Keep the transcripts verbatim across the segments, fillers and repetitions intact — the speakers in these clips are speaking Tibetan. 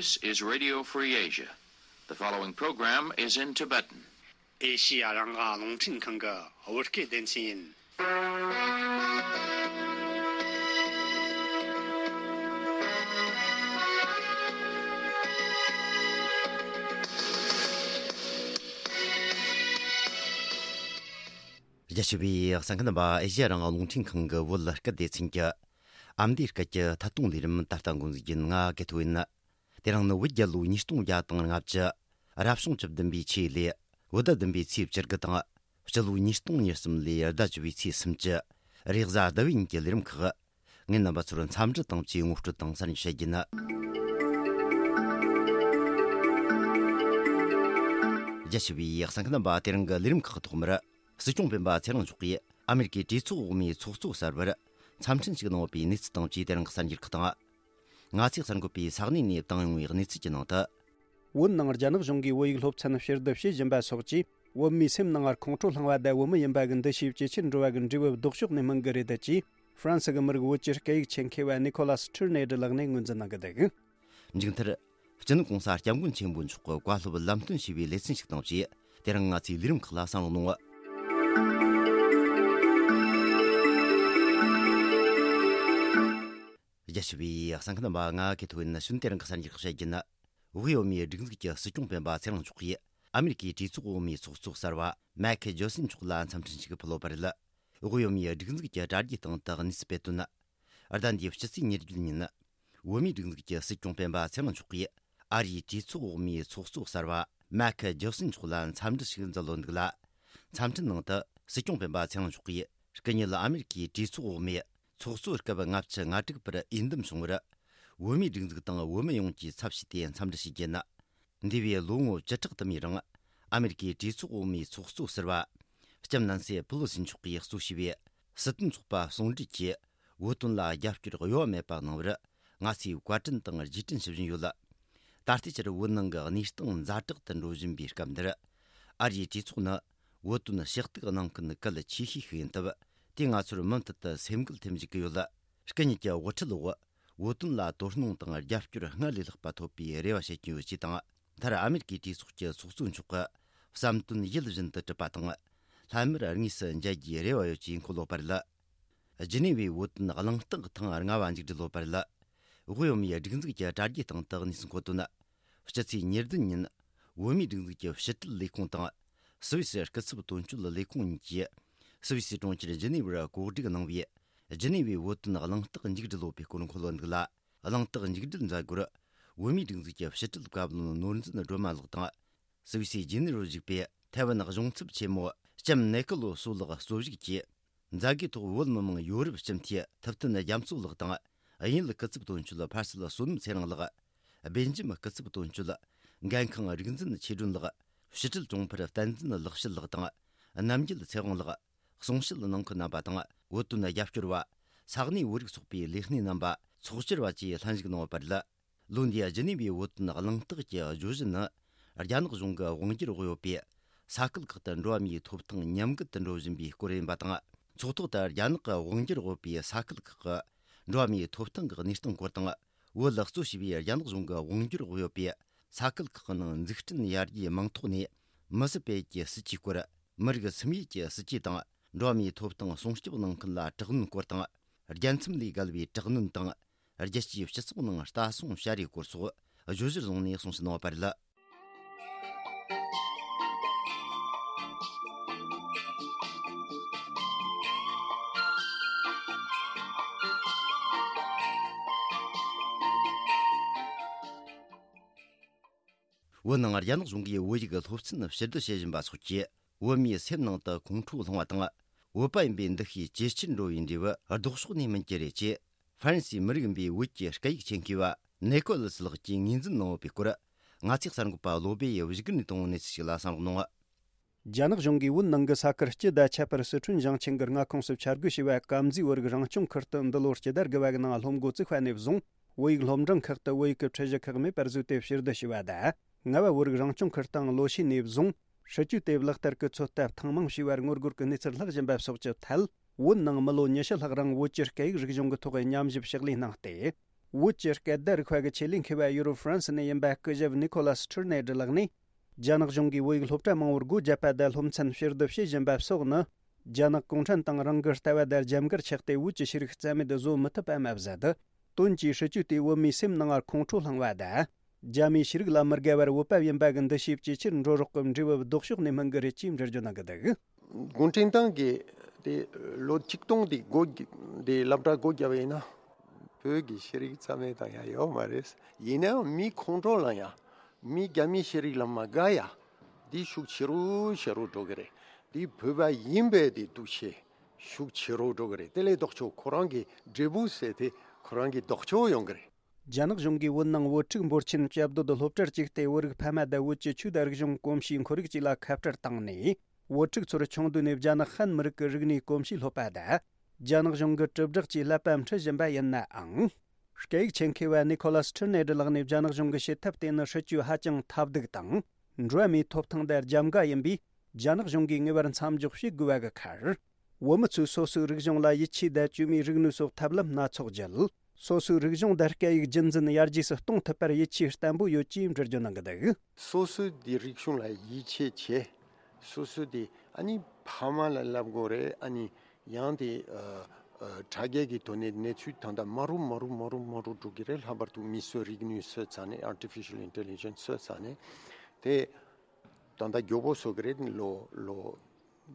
This is Radio Free Asia. The following program is in Tibetan. ཨེ་ཤི་ཡ་རང་དབང་རླུང་འཕྲིན་ཁང་གི་བོད་སྐད་སྡེ་ཚན་ཡིན། རྒྱ་ཆེ་བའི་གསན་མཁན་རྣམ་པ། ཨེ་ཤི་ཡ་རང་དབང་རླུང་འཕྲིན་ཁང་གི་བོད་སྐད་སྡེ་ཚན་གྱི་ཨ་མདོའི་སྐད་ཀྱི་ཐད་གཏོང་ལས་རིམ་ད་ལྟ་འགོ་འཛུགས་ཡིན། ང་དགེ་ཐོ་ཡིན། དེ་རིང་ནི་བོད་རྒྱལ་ལོ་ཉིས་སྟོང་བརྒྱ་དང་ལྔ་བཅུ། རབ་བྱུང་བཅུ་བདུན་པའི་ཆོས་ལོའི་བོད་ཟླ་བདུན་པའི་ཚེས་བཅུ་དགུ་དང་། སྤྱི་ལོ་ཉིས་སྟོང་ཉེར་གསུམ་ལོའི་ཟླ་བཅུ་པའི་ཚེས་སུམ་ཅུ། རེས་གཟའ་ཟླ་བའི་ཉིན་གྱི་ལས་རིམ་ཁག་ངས་རྣམ་པ་ཚོར་འཚམས་འདྲི་དང་བཅས་ངོ་སྤྲོད་དང་གསར་འགྱུར་བཤད་རྒྱུ་ཡིན། རྒྱ་ཆེ་བའི་གསན་མཁན་རྣམ་པ། དེ་རིང་གི་ལས་རིམ་ཁག་ཐོག་མར། སྲིད་སྐྱོང་སྤེན་པ་ཚེ་རིང་མཆོག་གིས་ཨ་མེ་རི་ཀའི་གྲོས་ཚོགས་འོག་མའི་ཚོགས་གཙོ་གསར་པར་འཚམས་འཕྲིན་ཞུས་གནང་བའི་གནས་ཚུལ་དང་བཅས་དེ་རིང་གི་གསར་འགྱུར་ཁག་དང་། ང་ཚོས་གསར་འགོད་པས་ས་གནས་ནས་བཏང་ཡོང་བའི་གནས་ཚུལ་གྱི་ནང་དུ། བོད་ནང་རྒྱ་ནག་གཞུང་གིས་བོད་ཡིག་སློབ་ཚན་ཕྱིར་བསྡུ་བྱེད་བཞིན་པ་སོགས་ཀྱིས། བོད་མིའི་སེམས་ནང་ངར་ཁོང་ཁྲོ་བསླངས་པ་དང་། བོད་མི་ཡིན་པ་གི་འདུ་ཤེས་ཇེ་ཆེར་འགྲོ་བ་གི་འབྲས་བུ་ལྡོག་ཕྱོགས་ནས་སྨིན་གི་རེད། ད་ཅེས་ཧྥ་རན་སི་གི་མི་རིགས་བོད་ཀྱི་སྐད་ཡིག་ཆེད་མཁས་པ་ནི་ཁོ་ལཱ་སི་ཁྲིར་ནེ་ཌི་ལགས་ནས་ངོས་འཛིན་གནང་གི་འདུག། མཇུག་མཐར། སྤྱི་ནོར་༸གོང་ས་༸སྐྱབས་མགོན་ཆེན་པོ་མཆོག་གི་བཀའ་སློབ་ལམ་སྟོན་ཞུས་པའི་ལེ་ཚན་ཞིག་དང་བཅས། དེ་རིང་ང་ཚོའི་ལས་རིམ་ཁག་ལ་གསན་རོགས་གནང་། རྒྱ་ཆེ་བའི་གསན་མཁན་རྣམ་པ། ང་དགེ་ཐོ་ཡིན། ནི་གཞོན་དེ་རིང་གི་གསར་འགྱུར་བཤད་རྒྱུ་ཡིན། དབུས་བོད་མིའི་སྒྲིག་འཛུགས་ཀྱི་སྲིད་སྐྱོང་སྤེན་པ་ཚེ་རིང་མཆོག་གིས་ཨ་མེ་རི་ཀའི་གྲོས་ཚོགས་འོག་མའི་ཚོགས་གཙོ་གསར་པ་མེག་ཇོན་སན་མཆོག་ལ་འཚམས་འཕྲིན་ཞུས་ཕུལ་བ་རེད། དབུས་བོད་མིའི་སྒྲིག་འཛུགས་ཀྱི་དྲ་རྒྱའི་སྟེང་དུ་གནས་ཚུལ་སྤེལ་དོན། ཟླ་འདིའི་ཕྱི་ཚེས་ཉེར་བརྒྱད་ཉིན། བོད་མིའི་སྒྲིག་འཛུགས་ཀྱི་སྲིད་སྐྱོང་སྤེན་པ་ཚེ་རིང་མཆོག་གིས་ཨ་རིའི་གྲོས་ཚོགས་འོག་མའི་ཚོགས་གཙོ་གསར་པ་མེག་ཇོན་སན་མཆོག་ལ་འཚམས་འདྲི་ཞིག་མཛད་ཡོད་འདུག་ལ། འཚམས་འཕྲིན་ནང་དུ་སྲིད་སྐྱོང་སྤེན་པ་ཚེ་རིང་མཆོག་གིས། སྐུ་ཉིད་ཨ་མེ་རི་ཀའི་གྲོས་ཚོགས་འོག་མའི་ཚོགས་གཙོ་སྐབས་ལྔ་བཅུ་ང་དྲུག་པར་འོས་འདེམས་བྱུང་བར། བོད་མིའི་སྒྲིག་འཛུགས་དང་བོད་མི་ཡོངས་ཀྱི་ཚབ་བྱས་ཏེ་འཚམས་འདྲི་ཞུ་རྒྱུ་ཡིན། འདས་པའི་ལོ་ངོ་བཅུ་ཕྲག་དུ་མའི་རིང་། ཨ་མེ་རི་ཀའི་གྲོས་ཚོགས་འོག་མའི་ཚོགས་གཙོ་ཟུར་པ། ལྕམ་ནན་སི་པི་ལོ་སི་མཆོག་གིས་གཙོ་བྱས་པའི་སྲིད་དོན་ཚོགས་པ་ཟུང་འབྲེལ་གྱིས། བོད་དོན་ལ་རྒྱབ་སྐྱོར་གཡོ་བ་མེད་པ་གནང་བར། ང་ཚོས་བཀའ་དྲིན་དང་རྗེས་དྲན་ཞུ་བཞིན་ཡོད། ད་ལྟའི་ཆར་བོད་ནང་གི་གནས་སྟངས་ཛ་དྲག་ཏུ་འགྲོ་བཞིན་པའི་སྐབས་འདིར། ཨ་རིའི་གྲོས་ཚོགས་ནི། བོད་དོན་ཞུ་གཏུག་གནང་མཁན་གལ་ཆེ་ཤོས་ཤིག་ཡིན་སྟབས། དེས་ང་ཚོར་མུ་མཐུད་དུ་སེམས་འགུལ་ཐེབས་འཇུག་གི་ཡོད། སྐུ་ཉིད་ཀྱི་དབུ་ཁྲིད་འོག་བོད་དོན་ལ་དོ་སྣང་དང་རྒྱབ་སྐྱོར་སྔར་ལས་ལྷག་པ་ཐོབ་པའི་རེ་བ་བྱེད་ཀྱི་ཡོད་ཅེས་དང་། མཐར་ཨ་མེ་རི་ཀའི་གྲོས་ཚོགས་ཀྱི་ཚོགས་གཙོ་མཆོག་གི་བསམ་དོན་ཡིད་བཞིན་དུ་གྲུབ་པ་དང་། ལྷན་མིར་དངོས་སུ་མཇལ་རྒྱུའི་རེ་བ་ཡོད་ཅེས་འཁོད་ཡོད་པ་རེད། ཇི་ནི་ཝའི་བོད་དོན་གླེང་སྟེགས་ཐེངས་ལྔ་བ་མཇུག་སྒྲིལ་ཡོད་པ་རེད། དབུས་བོད་མིའི་སྒྲིག་འཛུགས་ཀྱི་དྲ་རྒྱའི་སྟེང་དུ་གནས་ཚུལ་འཁོད་དོན། སྤྱི་ཚེས་ཉེར་བདུན་ཉིན། བོད་མིའི་སྒྲིག་འཛུགས་ཀྱི་ཕྱི་དྲིལ་ལས་ཁུངས་དང་། སུད་སི་སྐུ་ཚབ་དོན་གཅོད་ལས་ཁུངས་གཉིས་ཀྱིས། སུད་སི་གྲོང་ཁྱེར་ཇི་ནི་ཝར་གོ་སྒྲིག་གནང་བའི། ཇི་ནི་ཝའི་བོད་དོན་གླེང་སྟེགས་མཇུག་སྒྲིལ་ཡོད་པའི་སྐོར་འཁོད་ཡོད་འདུག་ལ། གླེང་སྟེགས་མཇུག་སྒྲིལ་མཛད་སྒོར། བོད་མིའི་སྒྲིག་འཛུགས་ཀྱི་ཕྱི་དྲིལ་བཀའ་བློན་ནོར་འཛིན་སྒྲོལ་མ་ལགས་དང་། སུད་སིའི་ཇི་ནི་ཝར་བཞུགས་པའི་ཐའེ་ཝན་གཞུང་ཚབ་ཆེན་མོ་ལྕམ་ནེ་ཀོ་ལོ་སོ་ལགས་གཙོ་བཞུགས་ཀྱིས། མཛད་སྒོའི་ཐོག་བོད་མི་མང་ཡོ་རོབ་སྤྱི་འཐུས་ཐུབ་བསྟན་རྒྱ་མཚོ་ལགས་དང་། དབྱིན་ཡུལ་སྐུ་ཚབ་དོན་གཅོད་ཕར་སྲིད་བསོད་ནམས་ཚེ་རིང་ལགས། སྦེལ་ཇམ་སྐུ་ཚབ་དོན་གཅོད་འགན་ཁང་རིག་འཛིན་ཆོས་སྒྲོན་ལགས། ཕྱི་དྲིལ་དྲུང་འཕར་བསྟན་འཛིན་ལེགས་བཤད་ལགས་དང་། རྣམ་རྒྱལ་ཚེ་དབང་ལགས། གསུང་བཤད་གནང་མཁན་རྣམ་པ་དང་། བོད་དོན་རྒྱབ་སྐྱོར་བ། ས་གནས་བོད་རིགས་ཚོགས་པའི་ལས་སྣེ་རྣམ་པ། ཚོགས་བཅར་བ་བཅས་ལྷན་ཞུགས་གནང་ཡོད་པ་རེད། ལོ་འདིའི་ཇི་ནི་ཝའི་བོད་དོན་གླེང་སྟེགས་ཀྱི་བརྗོད་གཞི་ནི། རྒྱ་ནག་གཞུང་གི་དབང་སྒྱུར་འོག་ཡོད་པའི་ས་ཁུལ་ཁག་ཏུ་འགྲོ་བ་མིའི་ཐོབ་ཐང་ཉམས་རྒུད་དུ་འགྲོ་བཞིན་པའི་སྐོར་ཡིན་པ་དང་། ཚོགས་ཐོག་ཏུ་རྒྱ་ནག་གི་དབང་སྒྱུར་འོག་ཡོད་པའི་ས་ཁུལ་ཁག་གི་འགྲོ་བ་མིའི་ཐོབ་ཐང་གི་གནས་སྟངས་སྐོར་དང་། བོད་ལ་གཙོ་བྱས་པའི་རྒྱ་ནག་གཞུང་གི་དབང་སྒྱུར་འོག་ཡོད་པའི་ས་ཁུལ་ཁག་གི་ནང་འཛུགས་སྐྲུན་ཡར་རྒྱས་མིང་ཐོག་ནས་མི་སེར་སྤེལ་གྱི་སྲིད་ཇུས་སྐོར། མི་རིགས་སིམ་ཡུལ་གྱི་སྲིད་ཇུས་དང་། འགྲོ་བ་མིའི་ཐོབ་ཐང་སྲུང་སྐྱོབ་གནང་མཁན་ལ་དྲག་གནོན་སྐོར་དང་། རྒྱལ་མཚམས་ལས་བརྒལ་བའི་དྲག་གནོན་དང་། རྒྱལ་སྤྱིའི་སྤྱི་ཚོགས་ནང་ལྟ་སྲུང་བྱ་རེས་སྐོར་སོགས་བརྗོད་གཞིར་བཟུང་ནས་གསུང་བཤད་གནང་བ་རེད། བོད་ནང་རྒྱ་ནག་གཞུང་གིས་བོད་ཡིག་སློབ་ཚན་ཕྱིར་བསྡུ་བྱེད་བཞིན་པ་སོགས་ཀྱིས། བོད་མིའི་སེམས་ནང་དུ་ཁོང་ཁྲོ་སློང་བ་དང་། བོད་པ་ཡིན་པའི་འདུ་ཤེས་ཇེ་ཆེར་འགྲོ་བའི་འབྲས་བུ་ལྡོག་ཕྱོགས་ནས་སྨིན་གྱི་རེད་ཅེས། ཧྥ་རན་སིའི་མི་རིགས་ཡིན་པའི་བོད་ཀྱི་སྐད་ཡིག་ཆེད་མཁས་པ་ནེ་ཀོ་ལི་སི་ལགས་ཀྱིས་ངོས་འཛིན་གནང་ཡོད་པའི་སྐོར། ང་ཚོའི་གསར་འགོད་པ་བློ་སྦེ་ཡིས་བཞུགས་སྒར་ནས་བཏང་བའི་གནས་ཚུལ་ཞིག་ལ་གསན་རོགས་གནང་། རྒྱ་ནག་གཞུང་གིས་བོད་ནང་གི་ས་ཁུལ་སྤྱི་དང་ཁྱད་པར་སི་ཁྲོན་ཞིང་ཆེན་གྱི་མངའ་ཁོངས་སུ་འཆར་འགོད་བྱས་པ་ཀམ་ཛིའི་བོད་རིགས་རང་སྐྱོང་ཁུལ་དུ་འདི་ལོ་སྤྱི་ཟླ་དགུ་པ་གི་ནང་སློབ་འགོ་བཙུགས་པ་ནས་བཟུང་། བོད་ཡིག་སློབ་འབྲིང་ཁག་ཏུ་བོད་ཡིག་གི་ཁྲིད་གཞི་ཁག་མེད་པར་བཟོས་ཏེ་ཕྱིར་བསྡུ་བྱས་པ་དང་། ལྔ་པ་བོད་རིགས་རང་སྐྱོང་ཁུལ་དང་ལོ་ཤས་ནས་བཟུང་། སྲིད་ཇུས་དེ་ལག་བསྟར་གྱི་ཚོད་ལྟ་ཐེངས་མང་བྱས་པར་ངོ་རྒོལ་གྱི་གནས་ཚུལ་ལྷག་བཞིན་པ་སོགས་ཀྱི་ཐད། བོད་ནང་མི་ལོ་ཉི་ཤུ་ལྷག་རིང་བོད་ཀྱི་སྐད་ཡིག་རིག་གཞུང་གི་ཐོག་ཉམས་ཞིབ་ཕྱག་ལས་གནང་སྟེ། བོད་ཀྱི་སྐད་བརྡ་རིག་པ་གི་ཆེད་ལས་མཁས་པ་ཡུ་རོབ་ཧྥ་རན་སི་ནས་ཡིན་པ་སྐུ་ཞབས་ནི་ཁོ་ལ་སི་ཁྲིར་ནེ་ཌི་ལགས་ནས། རྒྱ་ནག་གཞུང་གིས་བོད་ཡིག་སློབ་གྲྭ་མང་བོར་སྒོ་བརྒྱབ་པ་དང་སློབ་ཚན་ཕྱིར་བསྡུ་བྱེད་བཞིན་པ་སོགས་ནི། རྒྱ་ནག་གུང་ཁྲན་ཏང་རང་གི་ལྟ་བ་དང་རྒྱབ་འགལ་ཆགས་ཏེ། བོད་ཀྱི་ཤེས་རིག་རྩ་མེད་བཟོ་མི་ཐུབ་པ་མ་ཟད། དོན་གྱི་སྲིད་བྱུས་དེས་བོད་མིའི་སེམས་ནང་ཁོང་ཁྲོ་བསླངས་པ་དང་། རྒྱ་མིའི་ཤེས་རིག་ལ་མི་དགའ་བར་བོད་པ་ཡིན་པ་གི་འདུ་ཤེས་ཇེ་ཆེར་འགྲོ་རོགས་ཀྱི་འབྲས་བུ་ལྡོག་ཕྱོགས་ནས་སྨིན་གི་རེད་ཅེས་འགྲེལ་བརྗོད་གནང་གི་འདུག་གུང་ཁྲན་ཏང་གིས་དེ་ལོ་ཆིག་སྟོང་དེ་སྒོ་དེ་སློབ་གྲྭ་སྒོ་བརྒྱབ་པ་ཡིན་ན། བོད་ཀྱི་ཤེས་རིག་རྩ་མེད་བཏང་ཡ་ཡོད་མ་རེད། ཡིན་ནའང་མི་ཁོང་ཁྲོ་ལངས་ཡ། མི་རྒྱ་མིའི་ཤེས་རིག་ལ་མ་དགའ་ཡ། འདི་ཤུགས་ཆེ་རུ་ཆེ་རུ་འགྲོ་གི་རེད། འདི་བོད་པ་ཡིན་པའི་དེ་འདུ་ཤེས་ཤུགས་ཆེ་རུ་འགྲོ་གི་རེད། དེ་ལས་ལྡོག་ཕྱོགས་ཁོ་རང་གི་འབྲས་བུ་ཟེར་དེ་ཁོ་རང་གི་ལྡོག་ཕྱོགས་ཡོང་གི་རེད། རྒྱ་ནག་གཞུང་གིས་བོད་ནང་བོད་ཕྲུག་འབོར་ཆེན་བཅའ་སྡོད་སློབ་གྲྭར་བཅུག་སྟེ། བོད་རིགས་ཕ་མ་དང་བོད་ཀྱི་ཆོས་དང་རིག་གཞུང་གོམས་གཤིས་ཁོར་ཡུག་བཅས་ལ་ཁ་བྲལ་བཏང་ནས། བོད་ཕྲུག་ཚོར་ཆུང་དུས་ནས་རྒྱ་ནག་ཧན་མི་རིགས་ཀྱི་རིག་གནས་གོམས་གཤིས་སློབ་པ་དང་། རྒྱ་ནག་གཞུང་གི་དྲིལ་བསྒྲགས་ཀྱིས་བསླབ་པ་འཁྲིད་བཞིན་པ་ཡིན་ནའང་། སྐད་ཡིག་ཆེད་མཁས་པ་ནི་ཁོ་ལ་སི་ཁྲིར་ནེ་ཌི་ལགས་ནས། རྒྱ་ནག་གཞུང་གི་བྱེད་ཐབས་དེ་ནི་སྲིད་ཇུས་ཧ་ཅང་ཐབས་སྡུག་དང་། འགྲོ་བ་མིའི་ཐོབ་ཐང་དང་རྒྱབ་འགལ་ཡིན་པས། རྒྱ་ནག་གཞུང་གིས་ངེས་པར་མཚམས་འཇོག་བྱེད་དགོས་པ་གི་ཁར། བོད་མི་ཚོས་སོ་སོའི་རིག་གཞུང་ལ་ཡིད་ཆེས་དང་། བཅོས་མའི་རིག་ནུས་སོགས་ཐབས་ལམ་སྣ་ཚོགས་བརྒྱུད། སོ་སོའི་རིག་གཞུང་དང་སྐད་ཡིག་རྒྱུན་འཛིན་ཡར་རྒྱས་སུ་གཏོང་ཐུབ་པར་ཡིད་ཆེས་བརྟན་པོ་ཡོད་ཅེས་འགྲེལ་བརྗོད་གནང་གི་འདུག་སོ་སོའི་དེ་རིག་གཞུང་ལ་ཡིད་ཆེས་བྱེད། སོ་སོའི་དེ་ཨ་ནི་ཕ་མ་ལ་བསླབ་དགོས་རེད། ཨ་ནི་ཡང་དེ་ཨ་ཨ་དྲ་རྒྱའི་གི་ཐོག་ནས་གནས་ཚུལ་ད་ལྟ་མ་རུ་མ་རུ་མ་རུ་མ་རུ་འགྲོ་གི་རེད། ལྷག་པར་དུ་མིའི་རིག་ནུས་བཟོས་ཚར་ནས། artificial intelligence བཟོས་ཚར་ནས་དེ་ད་ལྟ་མགྱོགས་པོ་བཟོ་གི་རེད། ལོ་ལོ་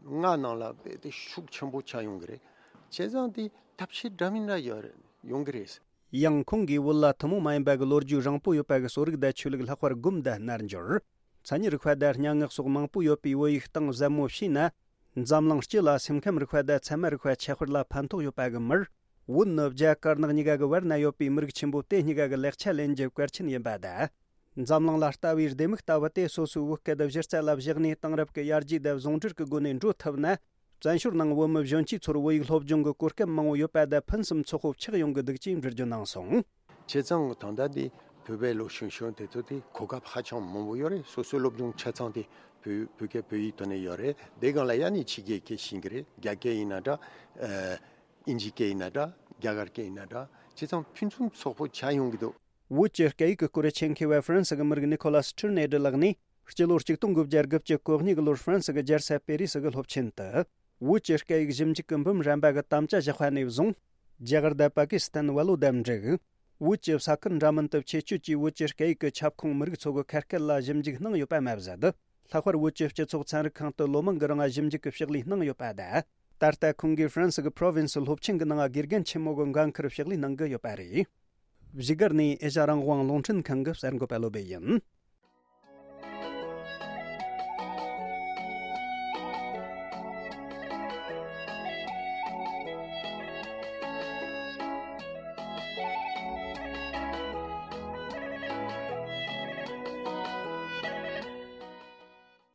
ལྔ་ནང་ལ་དཔེ་དེ་ཤུགས་ཆེན་པོ་ཆགས་ཡོང་གི་རེད། བྱས་ཙང་དེ་ཐབས་ཤེས་འདྲ་མིན་འདྲ་ཡོད་རེད། ཡོང་གི་རེད། ཡང་ཁོང་གིས་བོད་ལ་ཐུན་མོང་མ་ཡིན་པ་གི་ལོ་རྒྱུས་རིང་པོ་ཡོད་པ་གི་གསོ་རིག་དང་ཆོས་ལུགས། ལྷག་པར་སྒོམ་དང་རྣལ་འབྱོར། མཚན་ཉིད་རིག་པ་དང་སྙན་ངག་སོགས་མང་པོ་ཡོད་པའི་བོད་ཡིག་གཏིང་ཟབ་མོ་ཤེས་ན། འཛམ་གླིང་སྤྱི་ལ་སེམས་ཁམས་རིག་པ་དང་ཚད་མ་རིག་པ་ཁྱད་པར་ལ་ཕན་ཐོགས་ཡོད་པ་གི་མིར། བོད་ནི་རྒྱ་དཀར་ནག་གཉིས་ཀ་གི་བར་ན་ཡོད་པའི་མི་རིགས་ཆེན་པོ་དེ་གཉིས་ཀ་གི་ལེགས་ཆ་ལེན་རྒྱུ་གལ་ཆེན་ཡིན་པ་དང་། འཛམ་གླིང་ལ་ལྟ་བའི་ལྡེ་མིག་ལྟ་བུ་དེ་སོ་སོའི་བོད་སྐད་གཞི་རྩ་ལ་བཞག་ནས། དེང་རབས་ཀྱི་ཡར་རྒྱས་དང་ཟུང་འབྲེལ་གྱི་སྒོ་ནས་འགྲོ་ཐུབ་ན། བཙན་བྱོལ་ནང་བོད་མི་གཞོན་སྐྱེས་ཚོར་བོད་ཡིག་སློབ་སྦྱོང་གི་གོ་སྐབས་མང་བོ་ཡོད་པ་དང་། ཕུན་སུམ་ཚོགས་པོ་ཆགས་ཡོང་གི་འདུག་ཅེས་འགྲེལ་བརྗོད་གནང་སོང་། བྱས་ཙང་ད་ལྟ་འདི་བོད་པའི་ལོ་གཞོན་གཞོན་དེ་ཚོ་དེ་གོ་སྐབས་ཧ་ཅང་མང་པོ་ཡོད་རེད། སོ་སོའི་སློབ་སྦྱོང་ཆ་ཚང་དེ་བོད་བོད་སྐད་བོད་ཡིག་ཐོག་ནས་ཡོད་རེད། དེ་སྒང་ལ་ཡང་ནི་ཕྱི་རྒྱལ་སྐད་ཤེས་ཀྱི་རེད། རྒྱ་སྐད་ཡིན་ན་འདྲ། ཨ་ཨིན་ཇི་སྐད་ཡིན་ན་འདྲ། རྒྱ་གར་སྐད་ཡིན་ན་འདྲ། བྱས་ཙང་ཕུན་སུམ་ཚོགས་པོ་ཆགས་ཡོང་གི་འདུག་བོད་ཀྱི་སྐད་ཡིག་གི་སྐོར་ཆེད་མཁས་པ་ཧྥ་རན་སི་གི་མི་རིགས་ནི་ཁོ་ལ་སི་ཁྲིར་ནེ་ཌི་ལགས་ནས། སྤྱི་ལོ་ཆིག་སྟོང་དགུ་བརྒྱ་དགུ་བཅུ་གོ་གཉིས་གི་ལོར་ཧྥ་རན་སི་གི་རྒྱལ་ས་པེ་རི་སི་གི་སློབ་ཆེན་དུ། བོད་ཀྱི་སྐད་ཡིག་ཞིབ་འཇུག་གི་འབུམ་རམས་པ་གི་དམ་བཅའ་བཞག་པ་ནས་བཟུང་། རྒྱ་གར་དང་པ་ཀི་སི་ཐན་བལ་ལོ་དང་འབྲུག་བོད་ཀྱི་ས་ཁུལ་འདྲ་མིན་དུ་ཆེད་སྐྱོད་ཀྱིས་བོད་ཀྱི་སྐད་ཡིག་གི་ཁྱབ་ཁོངས་མི་རིགས་ཚོ་གི་ཁ་སྐད་ལ་ཞིབ་འཇུག་གནང་ཡོད་པ་མ་ཟད། ལྷག་པར་བོད་ཀྱི་སྤྱི་ཚོགས་ཚན་རིག་ཁང་དུ་ལོ་མང་གི་རིང་ཞིབ་འཇུག་གི་ཕྱག་ལས་གནང་ཡོད་པ་དང་། ད་ལྟ་ཁོང་གིས་ཧྥ་རན་སི་གི་པྲོ་ཝིན་སི་སློབ་ཆེན་གྱི་ནང་དགེ་རྒན་ཆེན་མོ་གི་འགན་འཁུར་ཕྱག་ལས་གནང་གི་ཡོད་པ་རེད། བཞུགས་སྒར་ནས་ཨེ་ཤ་རང་དབང་རླུང་འཕྲིན་ཁང་གི་གསར་འགོད་པ་བློ་བྷེ་ཡིན།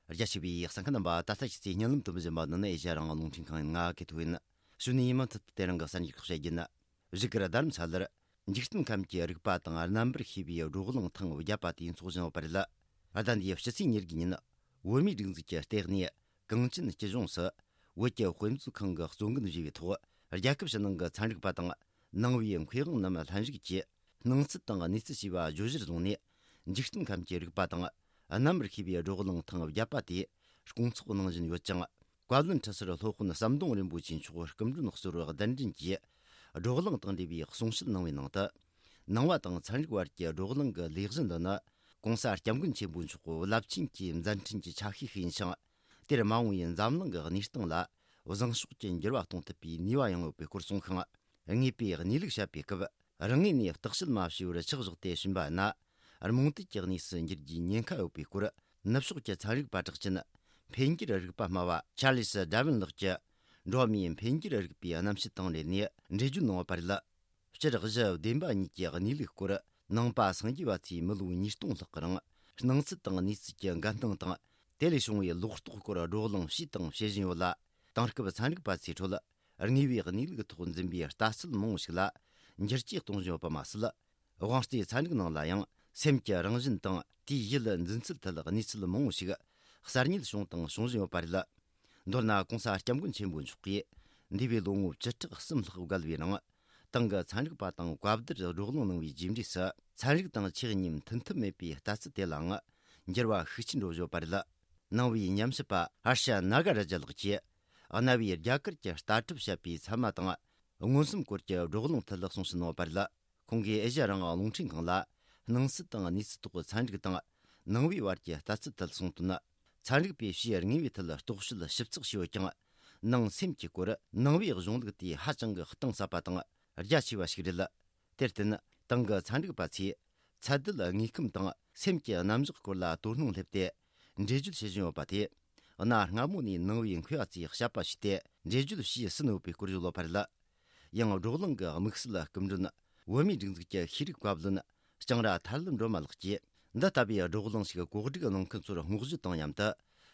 རྒྱ་ཆེ་བའི་གསན་མཁན་རྣམ་པ། ད་ལྟ་ཁྱེད་ཚོས་སྙན་ལམ་དུ་འབུལ་བཞིན་པ་ནི་ཨེ་ཤ་རང་དབང་རླུང་འཕྲིན་ཁང་ཡིན། ང་གི་ཐུག་ཡིན། གཞུག་ནས་ཡིན་མིན་ཐུབ་ཐུབ་དེ་རིང་གི་གསར་འགྱུར་ཁག་བཤད་རྒྱུ་ཡིན། བཞུགས་སྒར་རྡ་རམ་ས་ལར། འཇིག་རྟེན་ཁམས་ཀྱི་རིག་པ་དང་རྣམ་པར་ཤེས་པའི་བགྲོ་གླེང་ཐེངས་བརྒྱད་པ་དེ་འཚོགས་བཞིན་ཡོད་པ་རེད། ཟླ་འདིའི་ཕྱི་ཚེས་ཉེར་དགུ་ཉིན། བོད་མིའི་སྒྲིག་འཛུགས་ཀྱི་ལྟེ་གནས་གངས་ཅན་སྐྱིད་གཤོངས་སུ། བོད་ཀྱི་དཔེ་མཛོད་ཁང་གི་གཙོ་འགན་བཞེས་པའི་ཐོག་རྒྱལ་ཁབ་ཕྱི་ནང་གི་ཚན་རིག་པ་དང་། ནང་པའི་མཁས་དབང་རྣམས་ལྷན་ཞུགས་ཀྱིས། སྣང་ཚུལ་དང་གནས་ཚུལ་ཞེས་པ་བརྗོད་གཞིར་བཟུང་ནས། འཇིག་རྟེན་ཁམས་ཀྱི་རིག་པ་དང་། རྣམ་པར་ཤེས་པའི་བགྲོ་གླེང་ཐེངས་བརྒྱད་པ་དེ་སྐོང་ཚོགས་གནང་བཞིན་ཡོད་ཅིང་། བཀའ་བློན་ཁྲི་ཟུར་སློབ་དཔོན་ཟམ་གདོང་རིན་པོ་ཆེ་མཆོག་སྐུ་མགྲོན་གཙོ་བོར་གདན་འདྲེན་གྱིས། བགྲོ་གླེང་དང་འབྲེལ་བའི་གསུང་བཤད་གནང་བའི་ནང་དུ། ནང་པ་དང་ཚན་རིག་བར་གྱི་བགྲོ་གླེང་གི་ལས་གཞི་འདི་ནི། ༸གོང་ས་༸སྐྱབས་མགོན་ཆེན་པོ་མཆོག་རླབས་ཆེན་གྱི་མཛད་འཕྲིན་གྱི་ཆ་ཤས་ཤིག་ཡིན་ཞིང་། དེར་མ་འོངས་པའི་འཛམ་གླིང་གི་གནས་སྟངས་ལ་བཟང་ཕྱོགས་ཀྱི་འགྱུར་བ་གཏོང་ཐུབ་པའི་ནུས་པ་ཡང་ཡོད་པའི་སྐོར་གསུངས་ཤིང་། ངེས་པའི་གནས་ལུགས་བཤད་པའི་སྐབས། རང་ངོས་ནས་བརྟག་དཔྱད་མ་བྱས་པར་ཆག་བཞག་སྟེ་ཕྱིན་པ་ན། རྨོངས་དད་ཀྱི་གནས་སུ་འགྱུར་རྒྱུའི་ཉེན་ཁ་ཡོད་པའི་སྐོར། ནུབ་ཕྱོགས་ཀྱི་ཚན་རིག་པ་གྲགས་ཅན། འཕེལ་འགྱུར་རིག་པ་སྨྲ་བ་ཆར་ལི་སི་ཌར་ཝིན་ལགས་ཀྱིས། འགྲོ་བ་མིའི་འཕེལ་འགྱུར་རིག་པའི་རྣམ་བཤད་དང་འབྲེལ་ནས་འགྲེལ་བརྗོད་གནང་བ་པར་ལ། སྤྱིར་གཞི་བདེན་པ་གཉིས་ཀྱི་གནས་ལུགས་སྐོར། ནང་པ་སངས་རྒྱས་པ་ཚོས་མི་ལོ་ཉིས་སྟོང་ལྷག་གི་རིང་། སྣང་ཚུལ་དང་གནས་ཚུལ་གྱི་འགལ་སྣང་དང་། དེ་ལས་བྱུང་བའི་ལོག་རྟོག་སྐོར་བགྲོ་གླེང་བྱས་དང་བྱེད་བཞིན་ཡོད་ལ། དེང་སྐབས་ཚན་རིག་པ་ཚོའི་ཁྲོད། དངོས་པོའི་གནས་ལུགས་ཐོག་འཛིན་པའི་ལྟ་ཚུལ་མང་བོ་ཞིག་ལ། འགྱུར་བཅོས་གཏོང་བཞིན་ཡོད་པ་མ་ཟད། དབང་རྩའི་ཚན་རིག་ནང་ལ་ཡང་སེམས་ཀྱི་རང་བཞིན་དང་དེའི་ཡུལ་འཛིན་ཚུལ་ཐད་གནས་ཚུལ་མང་བོ་ཞིག་གསར་རྙེད་བྱུང་དང་འབྱུང་བཞིན་ཡོད་པ་རེད། མདོར་ན་༸གོང་ས་༸སྐྱབས་མགོན་ཆེན་པོ་མཆོག་གིས་འདས་པའི་ལོ་ངོ་བཅུ་ཕྲག་གསུམ་ལྷག་བརྒལ་བའི་ནང་ ཏང་གི་ཚན་རིག་པ་དང་བཀའ་བསྡུར་བགྲོ་གླེང་གནང་བའི་རྗེས་འབྲས་སུ། ཚན་རིག་དང་ཆེས་གཉིས་མཐུན་ཐབས་མེད་པའི་ལྟ་ཚུལ་དེ་ལའང་འགྱུར་བ་ཤུགས་ཆེན་འགྲོ་བཞིན་ཡོད་པ་རེད། ནང་པའི་ཉམས་ཞིབ་པ་ཧར་ཤ་ནཱ་ག་ར་ཇ་ལགས་ཀྱིས། གནའ་བོའི་རྒྱ་གར་གྱི་ལྟ་གྲུབ་བཤད་པའི་ཚད་མ་དང་མངོན་སུམ་སྐོར་གྱི་བགྲོ་གླེང་ཐད་གསུང་བཤད་གནང་བ་རེད། ཁོང་གིས་ཨེ་ཤ་ཡ་རང་དབང་རླུང་འཕྲིན་ཁང་ལ། སྣང་ཚུལ་དང་གནས་ཚུལ་ཐོག་ཚན་རིག་དང་ནང་པའི་བར་གྱི་ལྟ་ཚུལ་ཐད་གསུངས་དོན། ཚན་རིག་པས་ཕྱིའི་དངོས་པོའི་ཐད་རྟོག་དཔྱོད་ཞིབ་ཚགས་བྱས་ཡོད་ཀྱང་། ནང་སེམས་ཀྱི་སྐོར་ནང་པའི་གཞུང་ལུགས་དེས་ཧ་ཅང་གི་གཏིང་ཟབ་པ་དང་རྒྱ་ཆེ་བ་ཞིག་རེད། དེར་བརྟེན་ཏང་གི་ཚན་རིག་པ་ཚོས་ཚད་ལྡན་དངོས་ཁམས་དང་སེམས་ཀྱི་རྣམ་གཞག་སྐོར་ལ་དོ་སྣང་སླེབས་ཏེ་འགྲེལ་བརྗོད་བྱེད་བཞིན་ཡོད་པ་དེས། གནའ་སྔ་མོ་ནས་ནང་པའི་མཁས་པ་ཚོས་དཔྱད་པ་ཞུས་ཏེ་འགྲེལ་བརྗོད་བྱས་ཟིན་ཡོད་པའི་སྐོར་བརྗོད་ཡོད་པ་རེད། ཡང་བགྲོ་གླེང་གི་དམིགས་བསལ་སྐུ་མགྲོན། བོད་མིའི་སྒྲིག་འཛུགས་ཀྱི་ཤེས་རིག་བཀའ་བློན་ལྕང་ར་ཐར་ལམ་སྒྲོལ་མ་ལགས་ཀྱིས། འདི་ལྟ་བུའི་བགྲོ་གླེང་ཞིག་གོ་སྒྲིག་གནང་མཁན་ཚོར་བསྔགས་བརྗོད་དང་མཉམ་དུ།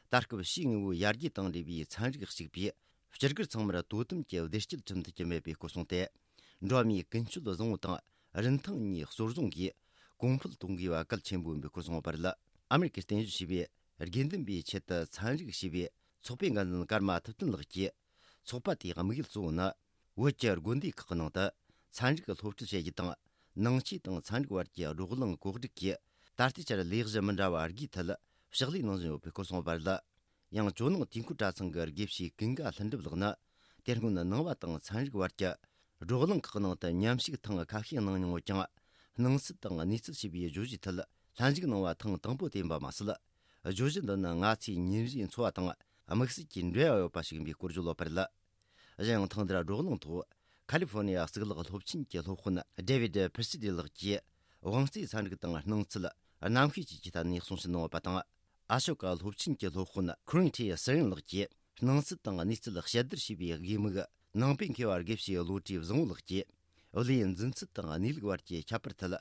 ད་སྐབས་ཕྱིའི་དངོས་པོའི་ཡར་རྒྱས་དང་འབྲེལ་བའི་ཚན་རིག་གཅིག་པས་སྤྱི་སྒེར་ཚང་མར་དོ་དམ་གྱི་བདེ་སྐྱིད་ཁྲིམས་མཐུན་གྱི་མེད་པའི་སྐོར་གསུངས་ཏེ། འགྲོ་བ་མིའི་ཀུན་སྤྱོད་བཟང་པོ་དང་རིན་ཐང་གཉིས་གཙོར་བཟུང་གིས་གོང་འཕེལ་གཏོང་དགོས་པ་གལ་ཆེན་པོ་ཡིན་པའི་སྐོར་གསུངས་པ་རེད། ཨ་མེ་རི་ཀའི་བརྟན་བཞུགས་ཞེས་པའི་དགེ་འདུན་པའི་ཆེད་དུ་ཚན་རིག་ཞེས་པའི་ཚོགས་པའི་འགན་འཛིན་ཀརྨ་ཐུབ་བསྟན་ལགས་ཀྱིས། ཚོགས་པ་དེའི་དམིགས་ཡུལ་གཙོ་བོ་ནི། བོད་ཀྱི་དགོན་སྡེ་ཁག་གི་ནང་དུ་ཚན་རིག་སློབ་ཁྲིད་བྱེད་རྒྱུ་དང་། ནང་ཆོས་དང་ཚན་རིག་བར་གྱི་བགྲོ་གླེང་གོ་སྒྲིག་གིས། ད་ལྟའི་ཆར་ལས་གཞི་མི་འདྲ་བ་བརྒྱའི་ཐད་ཕྱག་ལས་གནང་བཞིན་ཡོད་པའི་སྐོར་གསུངས་པ་རེད། ཡང་ཇོ་ནང་དུས་འཁོར་གྲྭ་ཚང་གི་དགེ་བཤེས་ཀུན་དགའ་ལྷུན་གྲུབ་ལགས་ནི། དེ་སྔོན་ནང་པ་དང་ཚན་རིག་བར་གྱི་བགྲོ་གླེང་ཁག་ནང་དུ་མཉམ་ཞུགས་ཐེངས་ཁ་ཤས་གནང་མྱོང་ཡོད་ཀྱང་། སྣང་ཚུལ་དང་གནས་ཚུལ་ཞེས་པའི་བརྗོད་གཞིའི་ཐད་ལྷན་ཞུགས་གནང་བ་ཐེངས་དང་པོ་དེ་ཡིན་པ་མ་ཟད། བརྗོད་གཞི་འདི་ནི་ང་ཚོའི་ཉིན་རེའི་འཚོ་བ་དང་དམིགས་བསལ་གྱི་འབྲེལ་བ་ཡོད་པ་ཞིག་ཡིན་པའི་སྐོར་བརྗོད་ཡོད་པ་རེད། གཞན་ཡང་ཐེངས་འདིར་བགྲོ་གླེང་ཐོག་ཁ་ལི་ཧྥོ་ནི་ཡ་གཙུག་ལག་སློབ་ཆེན་གྱི་སློབ་དཔོན་ཌེ་བིད་ཕི་སི་ཌི་ལགས་ཀྱིས། དབང་རྩའི་ཚན་རིག་དང་སྣང་ཚུལ་རྣམ་ཤེས་བཅས་ཀྱི་ཐད་ནས་གསུང་བཤད་གནང་བ་དང་། ཨ་ཤོ་ཀ་སློབ་ཆེན་གྱི་སློབ་དཔོན་ཁུ་རིན་ཁྲི་སི་རིན་ལགས་ཀྱིས། སྣང་ཚུལ་དང་གནས་ཚུལ་དཔྱད་བསྡུར་བྱས་པའི་དགོས་དམིགས། ནང་པའི་མཁས་པ་དགེ་བཤེས་བློ་གྲོས་བཟང་བོ་ལགས་ཀྱིས། བློའི་འཛིན་ཚུལ་དང་གནས་ལུགས་བར་གྱི་ཁྱད་པར་ཐད།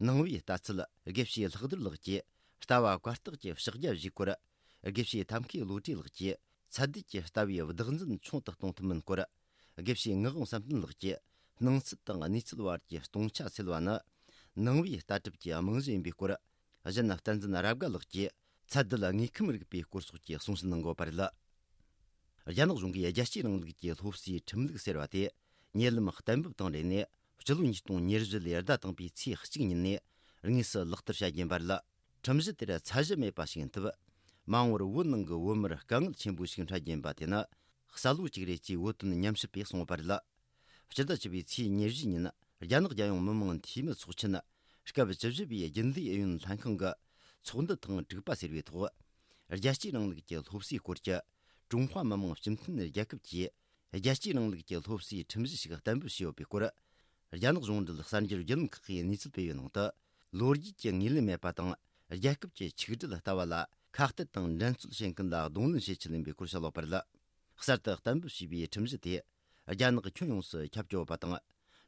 ནང་པའི་ལྟ་ཚུལ་དགེ་བཤེས་ལྷག་རྡོར་ལགས་ཀྱིས། ལྟ་བ་བཀའ་རྟགས་ཀྱི་ཕྱག་རྒྱ་བཞིའི་སྐོར། དགེ་བཤེས་ཐབས་མཁས་བློ་གྲོས་ལགས་ཀྱིས། ཚད་ལྡན་གྱི་ལྟ་བའི་བདག་འཛིན་ཆུང་དུ་གཏོང་ཐུབ་མིན་སྐོར། དགེ་བཤེས་ངག་དབང་བསམ་གཏན་ལགས་ཀྱིས། སྣང་ཚུལ་དང་གནས་ཚུལ་བར་གྱི་སྟོང་ཆ་སེལ་བ་ནི། ནང་པའི་ལྟ་གྲུབ་ཀྱི་རྨང་གཞི་ཡིན་པའི་སྐོར། གཞན་བསྟན་འཛིན་རབ་དགའ་ལགས་ཀྱིས། ཚད་ལྡན་དངོས་ཁམས་རིག་པའི་སྐོར་སོགས་ཀྱི་གསུང་བཤད་གནང་ཡོད་པ་རེད། རྒྱ་ནག་གཞུང་གིས་རྒྱལ་གཅེས་རིང་ལུགས་ཀྱི་སློབ་གསོའི་ཁྲིམས་ལུགས་ཟེར་བ་དེ། ཉེ་ལམ་གཏན་འབེབས་དང་འབྲེལ་ནས། སྤྱི་ལོ་ཉིས་སྟོང་ཉེར་བཞི་ལོའི་ཟླ་དང་པོའི་ཚེས་གཅིག་ཉིན་ནས་དངོས་སུ་ལག་བསྟར་བྱ་རྒྱུ་ཡིན་པ་རེད། ཁྲིམས་གཞི་དེར་ཚད་གཞི་མེད་པ་ཞིག་ཡིན་སྟབས། མ་འོངས་པར་བོད་ནང་གི་བོད་མིར་དཀའ་ངལ་ཆེན་པོ་ཞིག་འཕྲད་རྒྱུ་ཡིན་པ་དེ་ནི། གསལ་བོ་གཅིག་རེད་ཅེས་བོད་དོན་ཉམས་ཞིབ་པས་གསུངས་པ་རེད། སྤྱི་ཟླ་བཅུ་པའི་ཚེས་ཉེར་བཞི་ཉིན། རྒྱ་ནག་རྒྱལ་ཡོངས་མི་དམངས་འཐུས་མི་ཚོགས་ཆེན། སྐབས་བཅུ་བཞི་པའི་རྒྱུན་ལས་ཨུ་ཡོན་ལྷན་ཁང་གི་ཚོགས་འདུ་ཐེངས་དྲུག་པ་ཟེར་བའི་ཐོག་རྒྱལ་གཅེས་རིང་ལུགས་ཀྱི་སློབ་གསོའི་སྐོར་གྱི་ཀྲུང་ཧྭ་མི་དམངས་སྤྱི་མཐུན་རྒྱལ་ཁབ་ཀྱིས། རྒྱལ་གཅེས་རིང་ལུགས་ཀྱི་སློབ་གསོའི་ཁྲིམས་གཞི་ཞིག་གཏན་འབེབས་བྱས་ཡོད་པའི་སྐོར། རྒྱ་ནག་གཞུང་འབྲེལ་གསར་འགྱུར་བརྒྱུད་ལམ་ཁག་གིས་གནས་ཚུལ་སྤེལ་བའི་ནང་དུ། ལོ་རྒྱུས་ཀྱི་ངོས་ལེན་མེད་པ་དང་། རྒྱལ་ཁབ་ཀྱི་ཆིག་སྒྲིལ་ལྟ་བ་ལ་ཁ་གཏད་དང་འགྲན་རྩོད་བྱེད་མཁན་ལ་གདོང་ལེན་བྱེད་ཆེད་ཡིན་པའི་སྐོར་བཤད་ཡོད་པ་རེད། གསར་དུ་གཏན་འབེབས་བྱས་པའི་ཁྲིམས་གཞི་དེ། རྒྱ་ནག་ཁྱོན་ཡོངས་སུ་ཁྱབ་ཀྱི་ཡོད་པ་དང་།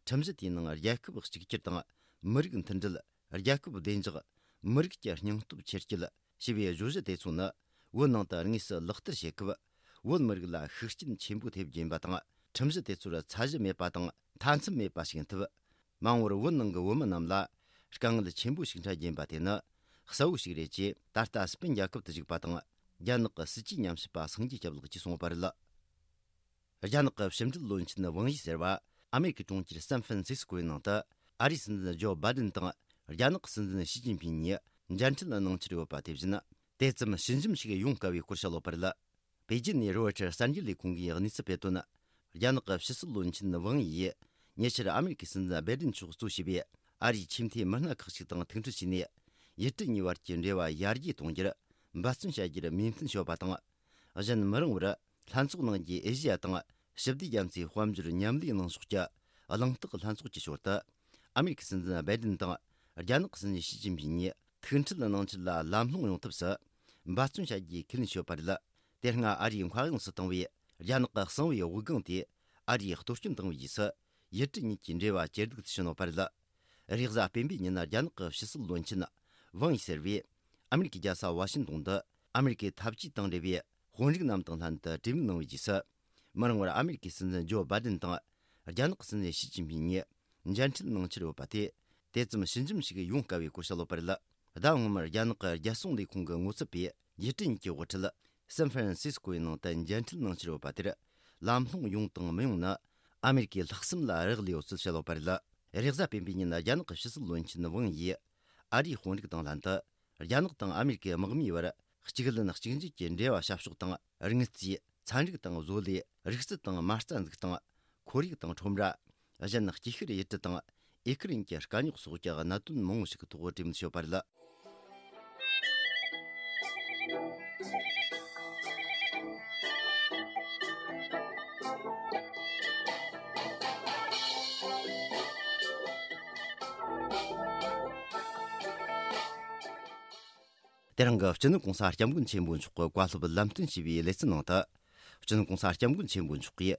ཁྲིམས་གཞི་དེའི་ནང་རྒྱལ་ཁབ་གཅིག་གྱུར་དང་། མི་རིགས་མཐུན་སྒྲིལ། རྒྱལ་ཁབ་བདེ་འཇགས། མི་རིགས་ཀྱི་སྙིང་སྟོབས་ཆེར་སྐྱེད། ཞེས་པའི་བརྗོད་གཞི་དེ་ཚོ་ནི། བོད་ནང་དུ་དངོས་སུ་ལག་བསྟར་བྱེད་སྐབས། བོད་མི་རིགས་ལ་ཤུགས་རྐྱེན་ཆེན་པོ་ཐེབས་རྒྱུ་ཡིན་པ་དང་། ཁྲིམས་གཞི་དེ་ཚོར་ཚད་གཞི་མེད་པ་དང་། མཐའ་མཚམས་མེད་པ་ཞིག་ཡིན་སྟབས། མ་འོངས་པར་བོད་ནང་གི་བོད་མི་རྣམས་ལ་དཀའ་ངལ་ཆེན་པོ་ཞིག་འཕྲད་རྒྱུ་ཡིན་པ་དེ་ནི་གསལ་བོ་ཞིག་རེད་ཅེས། ད་ལྟ་སི་པན་རྒྱལ་ཁབ་ཏུ་བཞུགས་པ་དང་། རྒྱ་ནག་གི་སྲིད་ཇུས་ཉམས་ཞིབ་པ་སངས་རྒྱས་སྐྱབས་ལགས་ཀྱིས་གསུངས་པ་རེད། རྒྱ་ནག་གི་ཕྱི་འབྲེལ་བློན་ཆེན་ཝང་ཡི་ཟེར་བ། ཨ་མེ་རི་ཀའི་གྲོང་ཁྱེར་སན་ཧྥན་སིས་ཀོའི་ནང་དུ། ཨ་རིའི་སྲིད་འཛིན་ཇོ་བྷའི་ཌེན་དང་། རྒྱ་ནག་གི་སྲིད་འཛིན་ཞི་ཅིན་ཕིང་གཉིས་མཇལ་འཕྲད་གནང་འཆར་ཡོད་པ་དེ་བཞིན། དེ་ཙམ་ཞི་འཇམ་ཞིག་ཡོང་དཀའ་བའི་སྐོར་བཤད་ཡོད་པ་རེད། པེ་ཅིན་ནས་རོའི་ཊར་གསར་འགྱུར་ལས་ཁུངས་ཀྱིས་གནས་ཚུལ་སྤེལ་དོན། རྒྱ་ནག་གི་ཕྱི་སྲིད་བློན་ཆེན་ཝང་ཡིས། ཉེ་ཆར་ཨ་མེ་རི་ཀའི་སྲིད་འཛིན་བྷའི་ཌེན་མཆོག་གཙོ་བྱས་པའི་ཨ་རིའི་ཆེས་མཐོའི་མི་སྣ་ཁག་ཅིག་དང་ཐུག་འཕྲད་བྱས་ནས། ཡུལ་གྲུ་གཉིས་བར་གྱི་འབྲེལ་བ་ཡར་རྒྱས་གཏོང་རྒྱུར་འབད་བརྩོན་བྱ་རྒྱུར་མོས་མཐུན་བྱས་པ་དང་། གཞན་མི་རིང་བར་ལྷན་ཚོགས་གནང་རྒྱུའི་ཨེ་ཤེ་ཡ་དང་ཞི་བདེ་རྒྱ་མཚོའི་དཔལ་འབྱོར་མཉམ་ལས་གནང་ཕྱོགས་ཀྱི་གླེང་སྟེགས་ལྷན་ཚོགས་ཀྱི་ཞོར་དུ། ཨ་མེ་རི་ཀའི་སྲིད་འཛིན་བྷའི་ཌེན་དང་རྒྱ་ནག་གི་སྲིད་འཛིན་ཞི་ཅིན་ཕིང་གཉིས་ཐུག་འཕྲད་གནང་ཕྱིར་ལ་ལམ་ལྷོང་ཡོང་ཐབས་སུ་འབད་བརྩོན་བྱ་རྒྱུའི་ཁས་ལེན་ཞུས་པ་རེད། དེ་སྔ་ཨ་རིའི་མཁའ་དབྱིངས་སུ་བཏང་བའི་རྒྱ་ནག་གི་གསང་བའི་དབུགས་ལྒང་དེ་ཨ་རིས་གཏོར་སྐྱོན་བཏང་བའི་རྗེས་སུ། ཡུལ་གྲུ་གཉིས་ཀྱི་འབྲེལ་བ་ཇེ་སྡུག་ཏུ་ཕྱིན་ཡོད་པ་རེད། རེས་གཟའ་སྤེན་པའི་ཉིན་རྒྱ་ནག་གི་ཕྱི་སྲིད་བློན་ཆེན་ཝང་ཡི་ཟེར་བས། ཨ་མེ་རི་ཀའི་རྒྱལ་ས་ཝ་ཤིང་ཏོན་དུ་ཨ་མེ་རི་ཀའི་འཐབ་ཇུས་དང་འབྲེལ་བའི་དཔོན་རིགས་རྣམས་དང་ལྷན་དུ་གྲོས་མོལ་གནང་བའི་རྗེས་སུ། མི་རིང་བར་ཨ་མེ་རི་ཀའི་སྲིད་འཛིན་ཇོ་བྷའི་ཌེན་དང་རྒྱ་ནག་གི་སྲིད་འཛིན་ཞི་ཅིན་ཕིང་གཉིས་མཇལ་འཕྲད་གནང་འཆར་ཡོད་པ་དེ། དེ་ཙམ་ཞི་འཇམ་ཞིག་ཡོང་དཀའ་བའི་སྐོར་བཤད་ཡོད་པ་རེད། ཟླ་སྔོན་མར་རྒྱ་ནག་གི་རྒྱལ་སྲུང་ལས་ཁུངས་ཀྱི་ངོ་ཚབ་པས་ཡུལ་གྲུ་གཉིས་ཀྱི་དབུ་ཁྲིད་སན་ཧྥ་རན་སིས་ཀོའི་ནང་དུ་མཇལ་འཕྲད་གནང་འཆར་ཡོད་པ་དེར། ལམ་ལྷོང་ཡོང་དང་མི་ཡོང་ནི། ཨ་མེ་རི་ཀའི་ལྷག་བསམ་ལ་རག་ལས་ཡོད་ཚུལ་བཤད་ཡོད་པ་རེད། རེས་གཟའ་སྤེན་པའི་ཉིན་རྒྱ་ནག་གི་ཕྱི་སྲིད་བློན་ཆེན་ཝང་ཡིས་ཨ་རིའི་དཔོན་རིགས་དང་ལྷན་དུ། རྒྱ་ནག་དང་ཨ་མེ་རི་ཀའི་དམག་མིའི་བར་གཅིག་ལན་གཅིག་གྱོད་ཀྱི་འབྲེལ་བ་བྱ་ཕྱོགས་དང་། རིག་རྩལ། ཚན་རིག་དང་བཟོ་ལས། རིག་རྩལ་དང་མ་རྩ་འཛུགས་སྟངས། ཁོར་ཡུག་དང་ཁྲོམ་ར། གཞན་སྐྱེ་ཤི་རེད་དྲི་དང་ཨེ་ཁུ་རིན་གྱི་དཀའ་རྙོག་སོགས་ཀྱི་གནད་དོན་མང་བོ་ཞིག་གི་ཐོག་གྲོས་མོལ་བྱས་ཡོད་པ་རེད། དེ་རིང་གི་སྤྱི་ནོར་གོང་ས་སྐྱབས་མགོན་ཆེན་པོ་མཆོག་གི་བཀའ་སློབ་ལམ་སྟོན་ཞུས་པའི་ལེ་ཚན་ནང་དུ། སྤྱི་ནོར་གོང་ས་སྐྱབས་མགོན་ཆེན་པོ་མཆོག་གིས་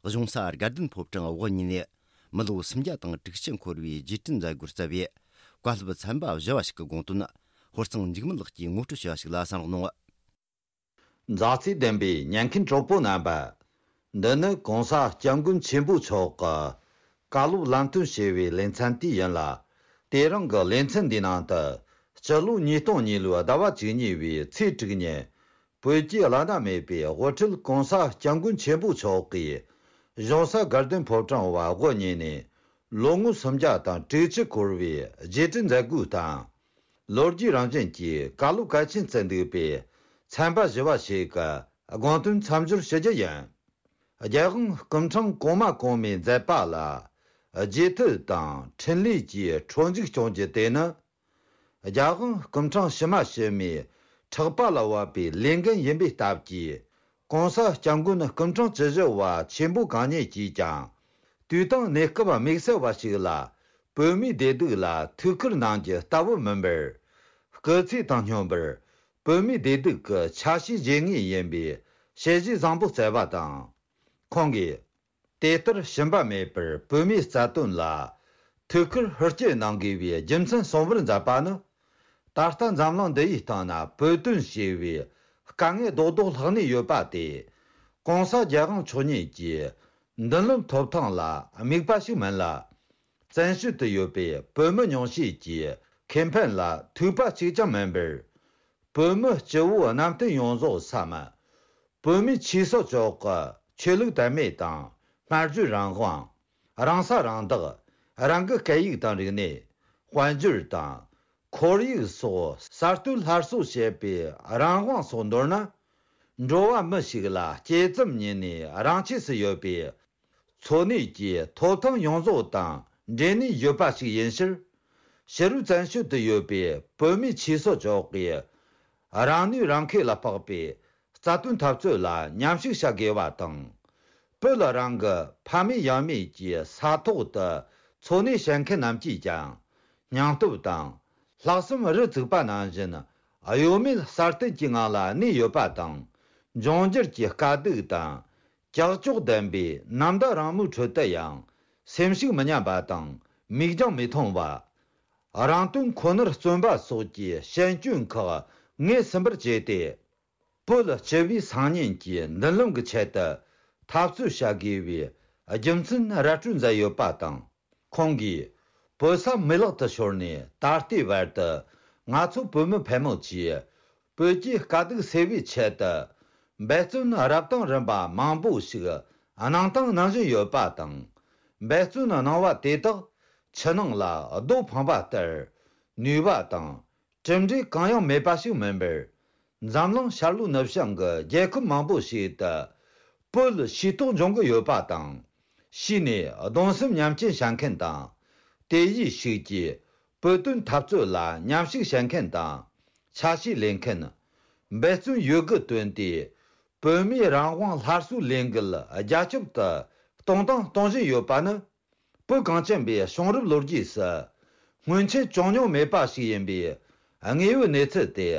གཞུང་ས་དགའ་ལྡན་ཕོ་བྲང་དབུ་བརྙེས་ནས་མི་ལོ་སུམ་བརྒྱ་དང་དྲུག་ཅུ་འཁོར་བའི་རྗེས་དྲན་མཛད་སྒོར་བཅར་བའི་བཀའ་སློབ་ཚན་པ་བཞི་བ་ཞིག་གི་དགོངས་དོན། ཧོར་གཙང་འཇིགས་མེད་ལགས་ཀྱིས་ངོ་སྤྲོད་བྱས་པ་ཞིག་ལ་གསན་རོགས་གནང་། མཛའ་བརྩེ་ལྡན་པའི་ཉན་མཁན་གྲོགས་པོ་རྣམ་པ། འདི་ནི་གོང་ས་སྐྱབས་མགོན་ཆེན་པོ་མཆོག་གི་བཀའ་སློབ་ལམ་སྟོན་ཞེས་པའི་ལེ་ཚན་དེ་ཡིན་ལ། དེ་རིང་གི་ལེ་ཚན་འདིའི་ནང་དུ། སྤྱི་ལོ་ཉིས་སྟོང་གཉིས་ལོའི་ཟླ་བ་བཅུ་གཉིས་པའི་ཚེས་དྲུག་ཉིན། བོད་ཀྱི་བླ་ན་མེད་པའི་དབུ་ཁྲིད་གོང་ས་སྐྱབས་མགོན་ཆེན་པོ་མཆོག་གིས། གཞུང་ས་དགའ་ལྡན་ཕོ་བྲང་བ་དབུ་བརྙེས་ནས། ལོ་ངོ་སུམ་བརྒྱ་དང་དྲུག་ཅུ་འཁོར་བའི་རྗེས་དྲན་མཛད་སྒོའི་སྟེང་། ལོ་རྒྱུས་རང་བཞིན་གྱི་བཀའ་སློབ་གལ་ཆེན་བརྩི་འདུག་པའི་ཚན་པ་བཞི་བ་ཞིག་གི་དགོངས་དོན་མཚམས་སྦྱོར་ཞུ་རྒྱུ་ཡིན། རྒྱལ་དབང་སྐུ་ཕྲེང་གོང་མ་གོང་མའི་མཛད་པ་ལ་རྗེས་མཐུད་དང་འཕྲིན་ལས་ཀྱིས་ཁྲོ་འཇུག་སྐྱོང་རྒྱུ་དེ་ནི། རྒྱལ་དབང་སྐུ་ཕྲེང་ཕྱི་མ་ཕྱི་མའི་ཕྲག་པ་ལ་བབས་པའི་ལས་འགན་ཡིན་པའི་སྟབས་ཀྱིས། གོང་ས་སྐྱབས་མགོན་སྐུ་ཕྲེང་བཅུ་བཞི་བ་ཆེན་པོ་གང་ཉིད་ཀྱིས་ཀྱང་། དུས་དང་གནས་སྐབས་དམིགས་བསལ་བ་ཞིག་ལ་བོད་མིའི་བདེ་སྡུག་ལ་ཐུགས་ཁུར་གནང་རྒྱུ་ལྟ་བུ་མིན་པར། སྐུ་ཚེ་དང་སྙོམས་པར་བོད་མིའི་བདེ་སྡུག་གི་ཆ་ཤས་བརྗེ་ངེས་ཡིན་པའི་དཔྱད་གཞི་བཟང་པོ་བསྩལ་བ་དང་། ཁོང་གིས། དེ་ལྟར་ཞུམ་པ་མེད་པར་བོད་མིའི་རྩ་དོན་ལ་ཐུགས་ཁུར་ཧུར་སྐྱེད་གནང་དགོས་པའི་རྒྱུ་མཚན་གསུང་བར་མཛད་པ་ནི། ད་ལྟ་འཛམ་གླིང་འདི་ཡི་སྟེང་ན་བོད་དོན་ཞེས་པའི་དཀའ་ངལ་རྡོག་རྡོག་ལྷག་ནས་ཡོད་པ་དེ། གོང་ས་རྒྱལ་དབང་མཆོག་ཉིད་ཀྱི་མདུན་ལམ་ཐོབ་ཐང་ལ་དམིགས་པ་ཞིག་མིན་ལ། བཙན་བྱོལ་དུ་ཡོད་པའི་བོད་མི་ཉུང་ཤས་ཀྱི་ཁེ་ཕན་ལ་ཐུག་པ་གཅིག་ཀྱང་མིན་པར། བོད་མི་སྤྱི་བོ་གནམ་བསྟན་ཡོངས་རྫོགས་སམ། བོད་མིའི་ཆོས་སྲིད་ཕྱོགས་ཀྱི་ཆོས་ལུགས་དད་མོས་དང་སྨྲ་བརྗོད་རང་དབང་། རང་ས་རང་བདག་རང་གི་སྐད་ཡིག་དང་རིག་གནས། དཔལ་འབྱོར་དང་། ཁོར་ཡུག་སོགས་གསར་གཏོད་སླར་གསོ་བྱེད་པའི་རང་དབང་སོགས་མདོར་ན། འགྲོ་བ་མི་ཞིག་ལ་སྐྱེས་ཙམ་ཉིད་ནས་རང་ཆས་སུ་ཡོད་པའི། འཚོ་གནས་ཀྱི་ཐོབ་ཐང་ཡོངས་རྫོགས་དང་འབྲེལ་ནས་ཡོད་པ་ཞིག་ཡིན་ཕྱིར། ཕྱི་རོལ་བཙན་བྱོལ་དུ་ཡོད་པའི་བོད་མིའི་ཆོས་སྲིད་ཕྱོགས་ཀྱི་རང་ནུས་རང་ཁེ་ལ་དཔག་པའི་རྩ་དོན་འཐབ་རྩོད་ལ་མཉམ་ཞུགས་བྱ་དགོས་པ་དང་། བོད་ལ་རང་གི་ཕ་མེས་ཡང་མེས་ཀྱི་ས་ཐོག་ཏུ་འཚོ་གནས་བྱེད་མཁན་རྣམས་ཀྱིས་ཀྱང་སྙིང་སྟོབས་དང་ལྷག་བསམ་རུ་བཙུགས་པ་ནང་བཞིན་གཡོ་མེད་གསར་གཏོད་ཀྱི་ངང་ལ་གནས་ཡོད་པ་དང་། འབྱུང་འགྱུར་གྱི་དཀའ་སྡུག་དང་། ཀྱག་ཀྱོག་ལྡན་པའི་ནམ་ཟླ་རིང་མོའི་ཁྲོད་དུ་ཡང་སེམས་ཤུགས་མི་ཉམས་པ་དང་མིག་རྒྱང་མི་ཐུང་བ། རང་དོན་ཁོ་ནར་བརྩོན་པ་སོགས་ཀྱི་ཤན་སྐྱོན་ཁག་ངོས་ཟིན་པར་བྱས་ཏེ། བོད་སྤྱི་པའི་སང་ཉིན་གྱི་མདུན་ལམ་གྱི་ཆེད་དུ་འཐབ་རྩོད་བྱ་དགོས་པའི་རྒྱུ་མཚན་ར་སྤྲོད་མཛད་ཡོད་པ་དང་། ཁོང་གིས་བོད་ས་མི་ལག་ཏུ་ཤོར་ནས་ད་ལྟའི་བར་དུ་ང་ཚོ་བོད་མི་ཕལ་མོ་ཆེས་བོད་ཀྱི་དཀའ་སྡུག་སེལ་བའི་ཆེད་དུ་འབད་བརྩོན་རབ་དང་རིམ་པ་མང་པོ་ཞིག་གནང་དང་གནང་བཞིན་ཡོད་པ་དང་། འབད་བརྩོན་གནང་བ་དེ་དག་ཕྱི་ནང་ལ་རྡོ་འཕངས་པ་ལྟར་ནུས་པ་དང་། གྲུབ་འབྲས་གང་ཡང་མེད་པ་ཞིག་མིན་པར། འཛམ་གླིང་ཤར་ལྷོའི་ནུབ་བྱང་གི་རྒྱལ་ཁབ་མང་པོ་ཞིག་ཏུ་བོད་ཤེས་རྟོགས་འབྱུང་གི་ཡོད་པ་དང་། ཤེས་ནས་གདུང་སེམས་མཉམ་སྐྱེད་བྱ་མཁན་དང་། དེ་ཡིས་ཤུགས་ཀྱིས་བོད་དོན་འཐབ་རྩོད་ལ་མཉམ་ཞུགས་བྱེད་མཁན་དང་། ཆ་ཤས་ལེན་མཁན། འབད་བརྩོན་ཡོད་དགུ་བཏོན་ཏེ། བོད་མིའི་རང་དབང་སླར་གསོའི་ལས་འགུལ་རྒྱ་ཁྱབ་ཏུ་གཏོང་དང་གཏོང་བཞིན་ཡོད་པ་ནི། བོད་གངས་ཅན་པའི་བྱུང་རབས་ལོ་རྒྱུས་སུ་སྔོན་ཆད་བྱུང་མྱོང་མེད་པ་ཞིག་ཡིན་པའི་དངོས་ཡོད་གནས་ཚུལ་དེ་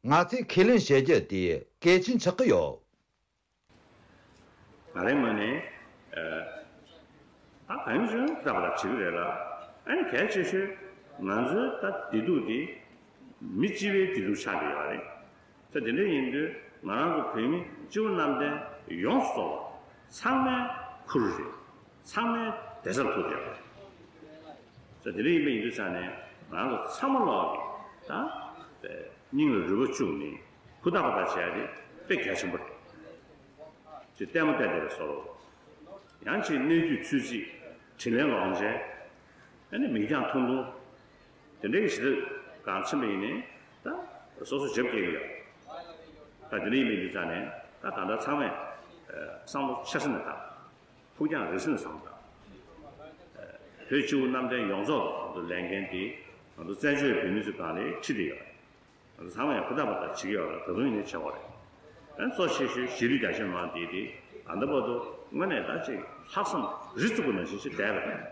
ང་ཚོས་ཁས་ལེན་བྱེད་རྒྱུ་དེ་གལ་ཆེན་ཆགས་ཀྱི་ཡོད། ང་རའི་ངོས་ནས། ད་གང་ཡིན་ཞུ་ན་ད་བར་བྱེད་ཀྱི་རེད་ལ། ཨ་ནི་གལ་ཆེ་ཤོས་ང་ཚོའི་ད་བདེ་སྡུག་འདི་མི་སྤྱི་བའི་བདེ་སྡུག་ཆགས་ཀྱི་ཡོད་རེད། ད་དེ་འདྲ་ཡིན་དུས་ང་རང་ཚོ་བོད་མི་སྤྱི་བོ་གནམ་བསྟན་ཡོངས་སུ་རྫོགས་པ་ཚང་མའི་ཁུར་རེད། ཚང་མའི་བདེ་རྩར་ཐུག་བསྡད་པ་རེད། ད་དེ་འདྲ་ཡིན་པ་ཡིན་དུས་ཙང་ནས་ང་རང་ཚོ་ཚང་མ་ལོག་གིས་ད་སྙིང་ལ་རུས་པ་བཅུག་ནས་ཧུར་ཐག་པ་ཐག་བྱས་ཏེ་དཔེ་གལ་ཆེན་པོ་རེད། དེ་ལྟད་མོ་བལྟས་བསྡད་པའི་བཟོ་འདྲ། ཡང་ཅིག་གནས་དུས་ཚོད་རྩིས། དྲིན་ལན་ལོག་འཇལ། ཨ་ནི་མིང་རྐྱང་ཐུང་ཐུང་། དེ་འདྲའི་གི་ཞིག་ལ་གང་ཕྱིན་པ་ཡིན་ནའི་ད་སོ་སོ་འཇབ་སྐྱེལ་གི་ཡོད། ད་དེ་འདྲ་ཡིན་པའི་དུས་ཙང་ནས་ད་ད་ལྟ་ཚང་མས་བསམ་བློ་ཆེ་ས་ནས་བཏང་། ཕུགས་རྒྱང་རིང་ས་ནས་བསམ་བློ་བཏང་། བོད་སྤྱི་བོ་གནམ་བསྟན་ཡོངས་རྫོགས་ལ་ལས་འགན་དེ་ང་ཚོ་བཙན་བྱོལ་བོད་མི་ཚོའི་སྒང་ལ་ཁྲིད་དེ་ཡོད། ཚང་མས་ཧུར་ཐག་པ་ད་བྱེད་ཀྱི་ཡོད་རེད། ད་དུང་ཡིན་ནའི་བྱེད་དགོས་རེད། ཨ་གཙོ་ཆེ་ཤོས་གཞིས་ལུས་རྒྱ་ཆེ་མང་དེ་དེ་ད་ལྟ་བར་དུ་དངོས་གནས་ད་ཅིག་ལྷག་བསམ་རི་བཙུགས་པ་ནང་བཞིན་ཞིག་བསྡད་པ་རེད།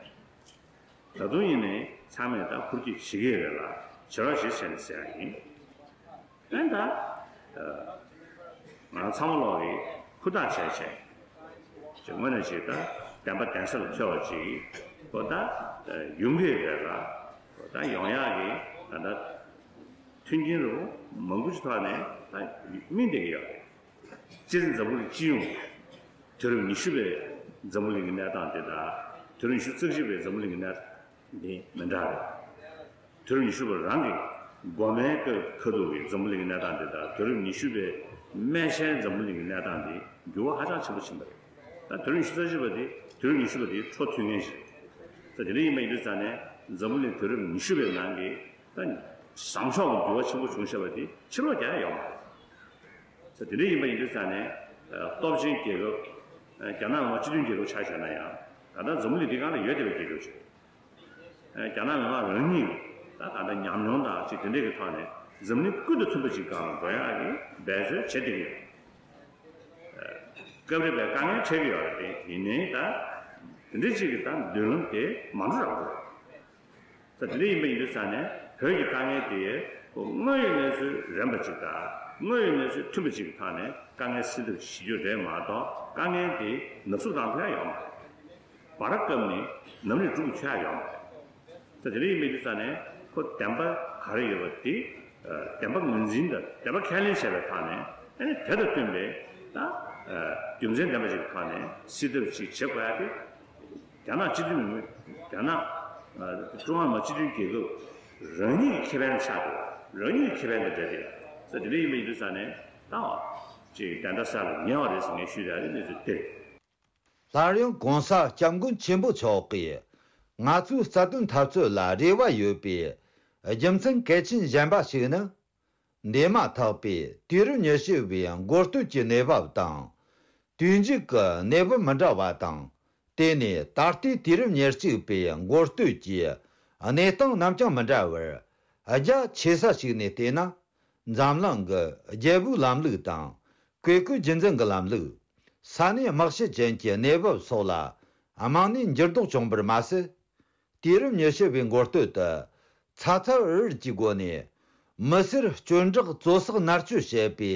ད་དུང་ཡིན་ནའི་ཚང་མས་ད་ཧུར་སྐྱེད་བྱེད་ཀྱི་ཡོད་རེད་ལ་བྱེད་རོགས་བྱེད་བྱས་ནས་ཟེར་ཡ་ཡིན། ཨ་ད་ང་ཚང་མ་ལོག་གིས་ཧུར་ཐག་བྱས་བྱས། ཅིག་དངོས་གནས་ཅིག་ད་བདེན་པ་གདན་ས་ལ་འཚོལ་བ་ཅིག་གོ་ད་ཡོང་གི་རེད་ལ། གོ་ད་ཡོང་ཡག་གི་ད་ལྟ་མཐུན་རྐྱེན་རུ་མང་པོ་ཅིག་ཐོག་ནས་ད་སྨིན་བསྡད་ཀྱི་ཡོད་རེད། སྤྱིར་འཛམ་བུ་གླིང་སྤྱི་ཡོངས་དུས་རབས་ཉི་ཤུ་པའི་འཛམ་བུ་གླིང་གི་གནས་སྟངས་དེ་དང་དུས་རབས་ཉི་ཤུ་རྩ་གཅིག་པའི་འཛམ་བུ་གླིང་གི་གནས་སྟངས་དེ་མི་འདྲ་རེད། དུས་རབས་ཉི་ཤུ་པ་རང་གི་འགོ་མའི་སྐབས་ཁ་ཐུག་གི་འཛམ་བུ་གླིང་གི་གནས་སྟངས་དེ་དང་དུས་རབས་ཉི་ཤུ་པའི་སྨད་ཆེན་འཛམ་བུ་གླིང་གི་གནས་སྟངས་དེ་འགྱུར་བ་ཧ་ཅང་ཆེན་པོ་ཕྱིན་པ་རེད། ད་དུས་རབས་ཉི་ཤུ་རྩ་གཅིག་པ་དེ་དུས་རབས་ཉི་ཤུ་པ་དེའི་འཕྲོ་མཐུད་མཁན་ཞིག་རེད། ད་དེ་འདྲ་ཡིན་པ་ཡིན་དུས་ཙང་ནས་འཛམ་བུ་གླིང་དུས་རབས་ཉི་ཤུ་པའི་ནང་གི་ད་བཟང་ཕྱོགས་ཀྱི་འགྱུར་བ་ཆེན་པོ་བྱུང་བཞག་པ་དེ་ཕྱིར་ལོག་རྒྱག་ཡ་ཡོད་མ་རེད། ད་དེ་འདྲ་ཡིན་པ་ཡིན་དུས་ཙང་ནས་སྟོབས་ཆེན་རྒྱལ་ཁབ་རྒྱ་ནག་མི་དམངས་སྤྱི་མཐུན་རྒྱལ་ཁབ་ཆ་བཞག་ན་ཡང་ད་ལྟ་འཛམ་བུ་གླིང་འདི་སྒང་ལ་ཡོད་བསྡད་པའི་རྒྱལ་ཁབ་ཅིག་རེད། རྒྱ་ནག་མི་དམངས་རང་ཉིད་ད་ད་ལྟ་ཉམས་མྱོང་དང་ཅིག་དེ་འདྲས་ཀྱི་ཐོག་ནས་འཛམ་གླིང་ཀུན་ཏུ་མཐུན་པ་ཅིག་སྒང་ལ་འགྲོ་ཡག་གི་འབད་རྩོལ་བྱེད་བསྡད་ཀྱི་ཡོད། སྐབས་རེ་བས་དཀའ་ངལ་འཕྲད་ཀྱི་ཡོད་རེད་དེ་ཡིན་ནའི་ད་དེ་འདྲས་ཅིག་གི་ད་མདུན་ལམ་དེ་མ་འགྲོ་རག་གི་རེད། ད་དེ་འདྲ་ཡིན་པ་ཡིན་དུས་ཙང་ནས་བོད་ཀྱི་དཀའ་ངལ་དེ་ཁོ་དངོས་ཡོད་གནས་ཚུལ་རན་པ་ཅིག་དང་དངོས་ཡོད་གནས་ཚུལ་མཐུན་པ་ཅིག་གི་ཐོག་ནས་དཀའ་ངལ་སེལ་ཐབས་བྱེད་རྒྱུ་རེད་མ་གཏོགས་དཀའ་ངལ་དེ་ནག་བསུབ་བཏང་ཐུབ་ཡ་ཡོད་མ་རེད། བར་སྐབས་ནས་ནམ་རིགས་འགྲུབ་ཆོག་ཡ་ཡོད་མ་རེད། ད་དེ་འདྲ་ཡིན་པའི་དུས་ཙང་ནས་ཁོ་བདེན་པ་ག་རེ་ཡོད་པ་དེ་བདེན་པ་ངོས་འཛིན་དང་བདེན་པ་ཁས་ལེན་བྱས་པའི་ཐོག་ནས་ཨ་ནི་དེ་དང་བསྟུན་པའི་ད་རྒྱུ་མཚན་ལྡན་པ་ཞིག་གི་ཐོག་ནས་སེལ་ཐབས་ཅིག་བྱེད་དགོས་ཡ་དེ། རྒྱ་ནག་སྤྱི་མཐུན་མི་རྒྱ་ནག་ཀྲུང་ཧྭ་མི་དམངས་སྤྱི་མཐུན་རྒྱལ་ཁབ་རང་ཉིད་ཀྱི་ཁེ་ཕན་ཆགས་འདུག་རང་ཉིད་ཀྱི་ཁེ་ཕན་དང་འབྲེལ་ཏེ་ཟེར་དེ་འདྲ་ཡིན་པའི་དུས་ཙང་ནས་ད་ཅིག་བདེན་མཐའ་གསལ་ལ་ཉེ་བ་རེད་ཟེར་ངས་ཞུས་ཡ་རེད། གནས་ཚུལ་དེ་རེད། སླར་ཡང་གོང་ས་སྐྱབས་མགོན་ཆེན་པོ་མཆོག་གིས་ང་ཚོའི་རྩ་དོན་འཐབ་རྩོད་ལ་རེ་བ་ཡོད་པའི་རྒྱུ་མཚན་གལ་ཆེན་གཞན་པ་ཞིག་ནི། འདས་མ་ཐག་པའི་དུས་རབས་ཉི་ཤུ་བའི་འགོ་སྟོད་ཀྱི་གནས་བབ་དང་། དུས་མཇུག་གི་གནས་བབ་མི་འདྲ་བ་དང་། དེ་ནས་ད་ལྟའི་དུས་རབས་ཉེར་གཅིག་པའི་འགོ་སྟོད་ཀྱི་གནས་སྟངས་རྣམས་ཀྱང་མི་འདྲ་བར། རྒྱ་ཆེ་ས་ཞིག་ནས་བལྟས་ན། འཛམ་གླིང་གི་རྒྱལ་པོའི་ལམ་ལུགས་དང་། བཀས་བཀོད་རྒྱུད་འཛིན་གྱི་ལམ་ལུགས། ས་གནས་དམག་ཤེད་ཅན་གྱི་གནས་བབ་སོགས་ལ་རྨང་ནས་འགྱུར་ལྡོག་བྱུང་བར་མ་ཟད། དུས་རབས་ཉི་ཤུ་བའི་འགོ་སྟོད་དུ། ཚ་ཚ་འུར་འུར་གྱི་སྒོ་ནས། མི་སེར་སྐྱོན་བྲག་བཙོ་བསགས་མནར་གཅོད་བྱེད་པའི་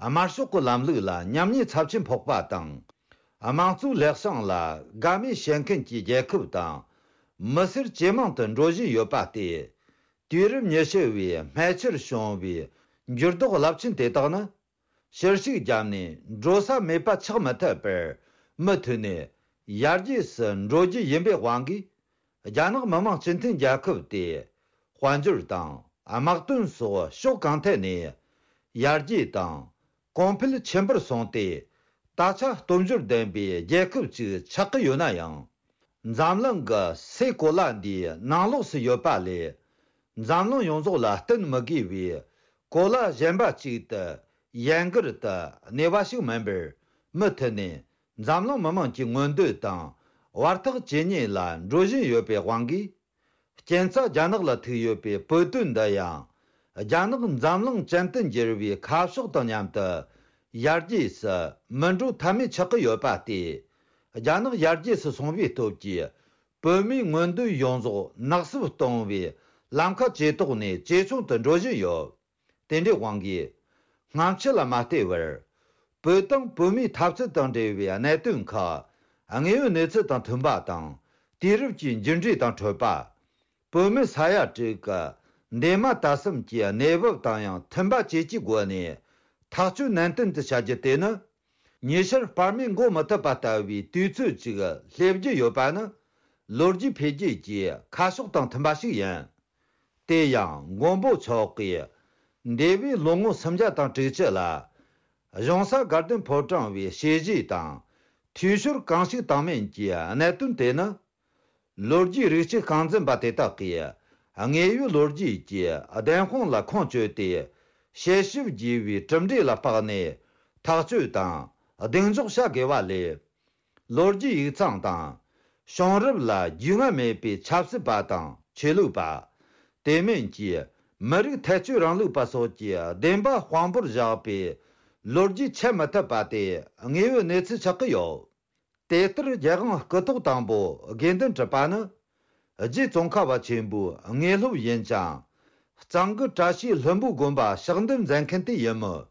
དམར་ཤོག་གི་ལམ་ལུགས་ལ་ཉམས་ཉེས་ཚབས་ཆེན་ཕོག་པ་དང་། དམངས་གཙོའི་ལེགས་བྱང་ལ་དགའ་མོས་བྱེད་མཁན་གྱི་རྒྱལ་ཁབ་དང་། མི་སེར་ཇེ་མང་དུ་འགྲོ་བཞིན་ཡོད་པ་སྟེ། དུས་རབས་ཉི་ཤུ་བའི་སྨད་ཆར་བྱུང་བའི་འགྱུར་ལྡོག་རླབས་ཆེན་དེ་དག་ནི། ཕྱིར་ཞིག་བརྒྱབ་ནས་འགྲོ་ས་མེད་པ་ཆགས་མི་ཐུབ་པར། མུ་མཐུད་ནས་ཡར་རྒྱས་སུ་འགྲོ་རྒྱུ་ཡིན་པའི་དབང་གིས། རྒྱ་ནག་མི་དམངས་སྤྱི་མཐུན་རྒྱལ་ཁབ་དེ། དཔལ་འབྱོར་དང་དམག་དོན་སོགས་ཕྱོགས་གང་ཐད་ནས་ཡར་རྒྱས་དང་གོང་འཕེལ་ཆེན་པོར་སོང་སྟེ། ད་ཆ་སྟོབས་འབྱོར་ལྡན་པའི་རྒྱལ་ཁབ་ཅིག་ཆགས་ཀྱི་ཡོད་ན་ཡང་། འཛམ་གླིང་གི་སའི་གོ་ལ་འདིའི་ནང་ལོགས་སུ་ཡོད་པ་ལས། འཛམ་གླིང་ཡོངས་རྫོགས་ལ་བསྟུན་མི་དགོས་པའི་གོ་ལ་གཞན་པ་ཅིག་ཏུ་ཡན་གར་དུ་གནས་པ་ཞིག་མིན་པར། མུ་མཐུད་ནས་འཛམ་གླིང་མི་དམངས་ཀྱི་མངོན་འདོད་དང་བར་ཐག་ཇེ་ཉེ་ལ་འགྲོ་བཞིན་ཡོད་པའི་དབང་གིས། རྐྱེན་རྩ་རྒྱ་ནག་ལ་ཐུག་ཡོད་པའི་བོད་དོན་འདི་ཡང་། རྒྱ་ནག་འཛམ་གླིང་ཅན་དུ་འགྱུར་བའི་ཁ་ཕྱོགས་དང་མཉམ་དུ་ཡར་རྒྱས་སུ་མི་འགྲོ་ཐབས་མེད་ཆགས་ཀྱི་ཡོད་པ་སྟེ། རྒྱ་ནག་ཡར་རྒྱས་སུ་སོང་བའི་སྟོབས་ཀྱིས། བོད་མིའི་མངོན་འདོད་ཡོངས་རྫོགས་ནག་བསུབ་གཏོང་བའི་ལམ་ཁ་ཇེ་དོག་ནས་ཇེ་ཆུང་དུ་འགྲོ་བཞིན་ཡོད། དེ་འདྲའི་དབང་གིས། སྔ་ཕྱི་ལ་མ་ལྟོས་པར། བོད་དང་བོད་མིའི་འཐབ་རྩོད་དང་འབྲེལ་བའི་གནད་དོན་ཁག་དངོས་ཡོད་གནས་ཚུལ་དང་མཐུན་པ་དང་། དུས་རབས་ཀྱི་འགྱུར་འགྲོས་དང་འཕྲོད་པ། བོད་མི་ས་ཡ་དྲུག་གི་འདས་མ་ད་གསུམ་གྱི་གནས་བབ་དང་ཡང་མཐུན་པ་བཅས་ཀྱི་སྒོ་ནས་ཐག་གཅོད་ནན་ཏན་དུ་བྱ་རྒྱུ་དེ་ནི། ཉི་ཤར་སྤར་མོས་འགོག་མི་ཐུབ་པ་ལྟ་བུའི་དུས་ཚོད་ཅིག་སླེབས་རྒྱུ་ཡོད་པ་ནི། ལོ་རྒྱུས་འཕེལ་རྒྱས་ཀྱི་ཁ་ཕྱོགས་དང་མཐུན་པ་ཞིག་ཡིན། དེ་ཡང་མགོན་པོ་མཆོག་གིས་འདས་པའི་ལོ་ངོ་སུམ་བརྒྱ་དང་དྲུག་ཅུ་ལ། གཞུང་ས་དགའ་ལྡན་ཕོ་བྲང་བའི་བྱས་རྗེས་དང་ འཐུས་ཤོར་གང་ཞིག་བཏང་མིན་གྱི་གནད་དོན་དེ་ནི། ལོ་རྒྱུས་རིག་དཔྱད་ཤིང་འཛིན་པ་དེ་དག་གིས་དངོས་ཡོད་ལོ་རྒྱུས་ཀྱི་བདེན་དཔང་ལ་ཁུངས་བཅོལ་ཏེ། དཔྱད་ཞིབ་བགྱིས་པའི་གྲུབ་འབྲས་ལ་དཔགས་ནས་ཐག་གཅོད་དང་གདེང་འཇོག་བྱ་དགོས་པ་ལས། ལོ་རྒྱུས་ཡིག་ཚང་དང་། བྱུང་རབས་ལ་རྒྱུས་མངའ་མེད་པའི་ཆབ་སྲིད་པ་དང་ཆོས་ལུགས་པ། དེ་མིན་གྱི་མི་རིགས་ཐལ་སྤྱོད་རིང་ལུགས་པ་སོགས་ཀྱི་བདེན་པ་དཔང་པོར་བཞག་པའི་ལོ་རྒྱུས་འཆད་མི་ཐུབ་པ་དེ་དངོས་ཡོད་གནས་ཚུལ་ཆགས་ཀྱི་ཡོད། དེ་ལྟར་རྒྱལ་དབང་སྐུ་ཐོག་དང་པོ་དགེ་འདུན་གྲུབ་པ་ནི། རྗེ་ཙོང་ཁ་པ་ཆེན་པོའི་དངོས་སློབ་ཡིན་ཅིང་། གཙང་དགུ་བཀྲ་ཤིས་ལྷུན་པོ་དགོན་པ་ཕྱག་འདེབས་མཛད་མཁན་དེ་ཡིན་མོད།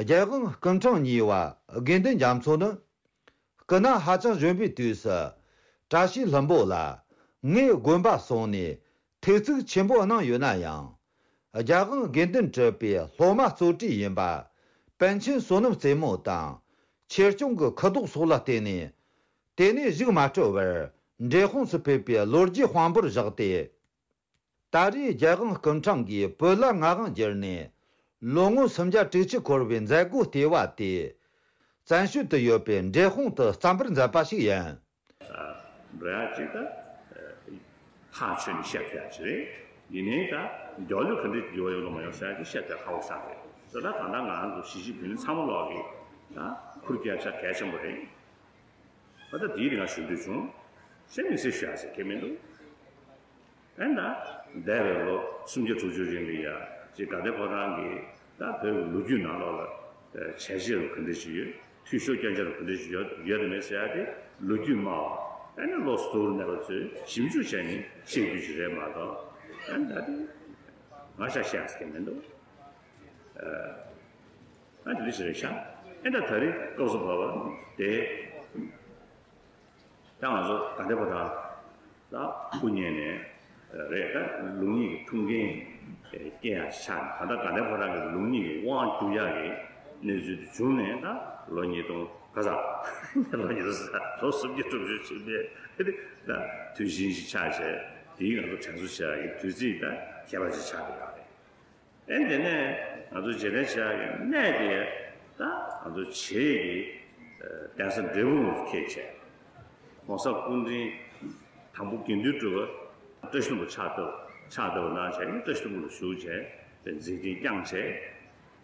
རྒྱལ་དབང་སྐུ་ཕྲེང་གཉིས་པ་དགེ་འདུན་རྒྱ་མཚོ་ནི། སྐུ་ན་ཧ་ཅང་གཞོན་པའི་དུས་སུ། བཀྲ་ཤིས་ལྷུན་པོ་ལ་ངས་དགོན་པ་སོང་ནས་ཐུགས་བརྩེ་ཆེན་པོ་གནང་ཡོད་ན་ཡང་། རྒྱལ་དབང་དགེ་འདུན་གྲུབ་པའི་སློབ་མ་གཙོ་གྲས་ཡིན་པ། པཎ་ཆེན་བསོད་ནམས་རྩེ་མོ་དང་། ཆོས་སྐྱོང་གི་ཁུ་དོག་སོགས་ལ་བརྟེན་ནས། དེ་ནས་གཞུག་མ་སྤྲོ་བར་འབྲས་སྤུངས་སུ་ཕེབས་པའི་ལོ་རྒྱུས་དཔང་པོར་བཞག་སྟེ། ད་རེས་རྒྱལ་དབང་སྐུ་ཕྲེང་གིས་བོད་ལ་མངའ་དབང་བསྒྱུར་ནས་ལོ་ངོ་སུམ་བརྒྱ་དྲུག་ཅུ་འཁོར་བའི་མཛད་སྒོ་ལྟེ་བ་དེ། བཙན་བྱོལ་དུ་ཡོད་པའི་འབྲས་སྤུངས་དུ་བརྩམ་པར་མཛད་པ་ཞིག་ཡིན། འགྲོ་ཡག་ཅིག་ད། ཐག་ཆོད་ནས་བཤད་ཐུབ་ཡག་ཅིག་རེད། ཡིན་ནའི་ད་མགྱོགས་ལོས་ག་འདྲ་འགྱུར་བ་ཡོང་གི་མ་ཡོང་ཟེར་ཡག་དེ་བཤད་ཐུབ་ཡག་ཁག་པོ་ཆགས་རེད། དེ་ད་ད་ལྟ་ང་རང་ཚོ་གཞིས་བྱེས་བོད་མི་ཚང་མ་ལོག་གི་ད་ཁུར་རྒྱག་ཆ་གལ་ཆེན་པོ་རེད། ཨ་ད་དེའི་རིང་ང་ཞུ་འདོད་བྱུང་། གཞན་མི་སྲིད་ཞུ་ཡག་ཟེར་གྱི་མི་འདུག་ཨེ་ད། འདས་པའི་ལོ་སུམ་བརྒྱ་དྲུག་ཅུ་རིང་ལ་ཡ་ཅིག་དགའ་ལྡན་ཕོ་བྲང་གི་ད་བོད་ཀྱི་ལོ་རྒྱུས་ནང་ལོགས་ལ་བྱས་རྗེས་རུ་ག་འདྲ་ཞིག་ཡོད། འཐུས་ཤོར་སྐྱོན་ཆ་རུ་ག་འདྲ་ཞིག་ཡོད་ཡོད་དམ་མེད་ཟེར་ཡ་དེ་ལོ་རྒྱུས་སྨྲ་བ་ཨེ་ནི་བློ་གཟུ་བོར་གནས་པ་ཚོས་ཞིབ་འཇུག་བྱས་ནས་བཤད་རྒྱུ་ཞིག་རེད་མ་གཏོགས་ཨེ་ད་དེ་ང་ཤ་བཤད་ཟེར་གྱི་མི་འདུག་ཨ་དེ་འདྲ་ཞིག་རེད་ཤག་ཨེ་ད་ད་རེས་སྐབས་སུ་བབས་པ་དེ། ད་ང་ཚོ་དགའ་ལྡན་ཕོ་བྲང་ལ་སྐུ་ཉིད་ནས་རེད། ད་ལུགས་གཉིས་ཀྱི་ཐུགས་འགན་སྐྱེལ་ཡག་ཆགས་ནས། ད་ལྟ་དགའ་ལྡན་ཕོ་བྲང་གི་ལུགས་གཉིས་ཀྱི་དབང་བསྒྱུར་ཡག་གི་གནས་ཚུལ་དེ་བྱུང་ནས་ད་ལོ་ཉིས་སྟོང་ག་ས་ལོ་ཉིས་སྟོང་ལོ་སུམ་བརྒྱ་དྲུག་ཅུ་ཕྱིན་པའི་ད་དུས་ཆེན་ཞིག་ཆགས་བྱས། དེའི་ང་ཚོ་དྲན་གསོ་བྱེད་ཡག་གི་དུས་ཚིགས་ད་ཁྱད་པར་ཅིག་ཆགས་བསྡད་ཡོད་རེད། ཨེ་དེ་ནས་ང་ཚོ་རྗེས་དྲན་བྱེད་ཡག་གི་གནས་དེ་ད་ང་ཚོ་བྱེས་ཀྱི་གདན་ས་འབྲས་སྤུངས་སུ་འཁེལ་བྱས། ༸གོང་ས་སྐུ་ཕྲེང་དང་པོ་དགེ་འདུན་གྲུབ་པ་བཀྲ་ཤིས་ལྷུན་པོ་ཕྱག་བཏབ་ཕྱག་བཏབ་གནང་བྱས་ནས་བཀྲ་ཤིས་ལྷུན་པོ་ལ་བཞུགས་བྱས་པའི་མཛད་འཕྲིན་བསྐྱངས་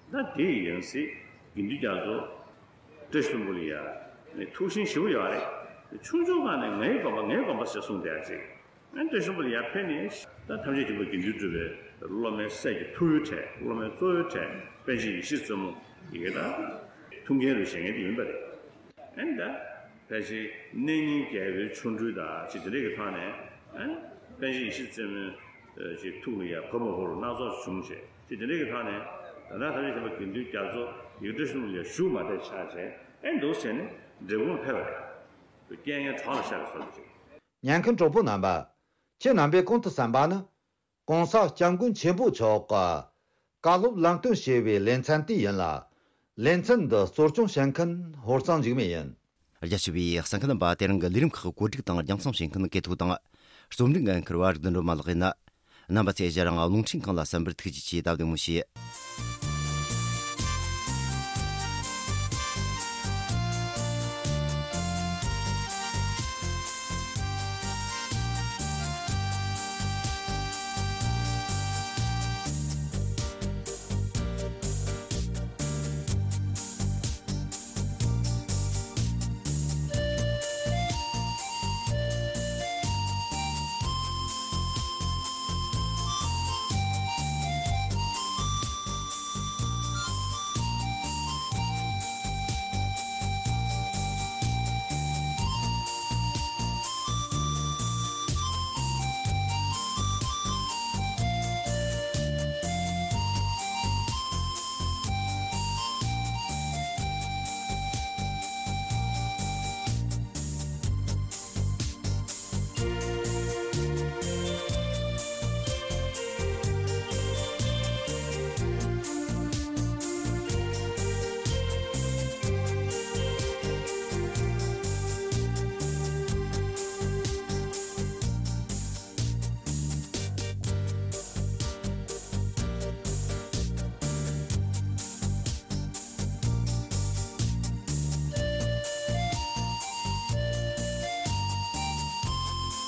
བྱས། ད་དེ་ཡིན་སྲིད་དགེ་འདུན་རྒྱ་མཚོ་བཀྲ་ཤིས་ལྷུན་པོ་ལ་ཡ་ནི་ཐུགས་ཞེན་ཞེ་པོ་ཡོད་རེད། ཆུང་ཆུང་སྒང་ནས་ངའི་དགོན་པ་ངའི་དགོན་པ་ཞེས་གསུངས་བསྡད་ཡ་ཅིག་ཨ་ནི་བཀྲ་ཤིས་ལྷུན་པོ་ལ་ཡར་ཕེབས་ནས་ད་ཐམས་ཅད་མཁྱེན་པ་དགེ་འདུན་གྲུབ་པའི་སློབ་མའི་སྲས་ཀྱི་ཐུ་བོའི་གྲས་སློབ་མའི་གཙོ་བོའི་གྲས་པཎ་ཆེན་ཡེ་ཤེས་བཙུན་མོ་ཡི་གེ་ད་ཐུགས་འགན་རུ་བཞེས་མཁན་དེ་ཡིན་པ་རེད། ཨ་ནི་ད་ཕལ་ཆེར་གནས་རྙིང་རྒྱལ་པོའི་ཆོ་འཕྲུལ་དང་ཅིག་དེ་འདྲས་ཀྱི་ཐོག་ནས་ཨ་ནི་པཎ་ཆེན་ཡེ་ཤེས་བཙུན་མོའི་ཅིག་ཐུགས་ལ་ཡར་བབས་མ་བབས་སྣ་ཚོགས་བྱུང་བྱས་ཅིག་དེ་འདྲས་ཀྱི་ཐོག་ནས་ད་ལྟ་ཐམས་ཅད་མཁྱེན་པ་དགེ་འདུན་རྒྱ་མཚོ་ཡི་གེ་བཀྲ་ཤིས་ལྷུན་པོ་ལ་ཡར་བཞུགས་མ་བསྡད་ཆགས་བྱས་ཨ་ནི་འདུག་བྱས་ནས་འབྲས་སྤུངས་ལ་ཕེབས་པ་རེད། རྐྱེན་ངན་གྲོགས་ལ་ཤར་བའི་བཟོ་འདྲ་ཅིག་ཉན་མཁན་གྲོགས་པོ་རྣམ་པ། ཁྱེད་རྣམ་པས་གོང་དུ་གསན་པ་ནི། ༸གོང་ས་༸སྐྱབས་མགོན་ཆེན་པོ་མཆོག་གི་བཀའ་སློབ་ལམ་སྟོན་ཞེས་པའི་ལེ་ཚན་དེ་ཡིན་ལ། ལེ་ཚན་འདི་གཙོ་སྐྱོང་བྱེད་མཁན་ཧོར་གཙང་འཇིགས་མེད་ཡིན། རྒྱ་ཆེ་བའི་གསན་མཁན་རྣམ་པ། དེ་རིང་གི་ལས་རིམ་ཁག་བཀོད་སྒྲིག་དང་རྒྱང་སྲིང་བྱེད་མཁན་གལ་ཐུག་དང་། རྩོམ་སྒྲིག་འགན་འཁུར་བ་རིག་ལྡན་སྒྲོལ་མ་ལགས་ཡིན། རྣམ་པ་ཚོས་ཞལ་རང་རླུང་འཕྲིན་ཁང་ལ་གསན་པར་ཐུགས་རྗེ་ཆེ། དང་བདེ་མོ་བྱོས།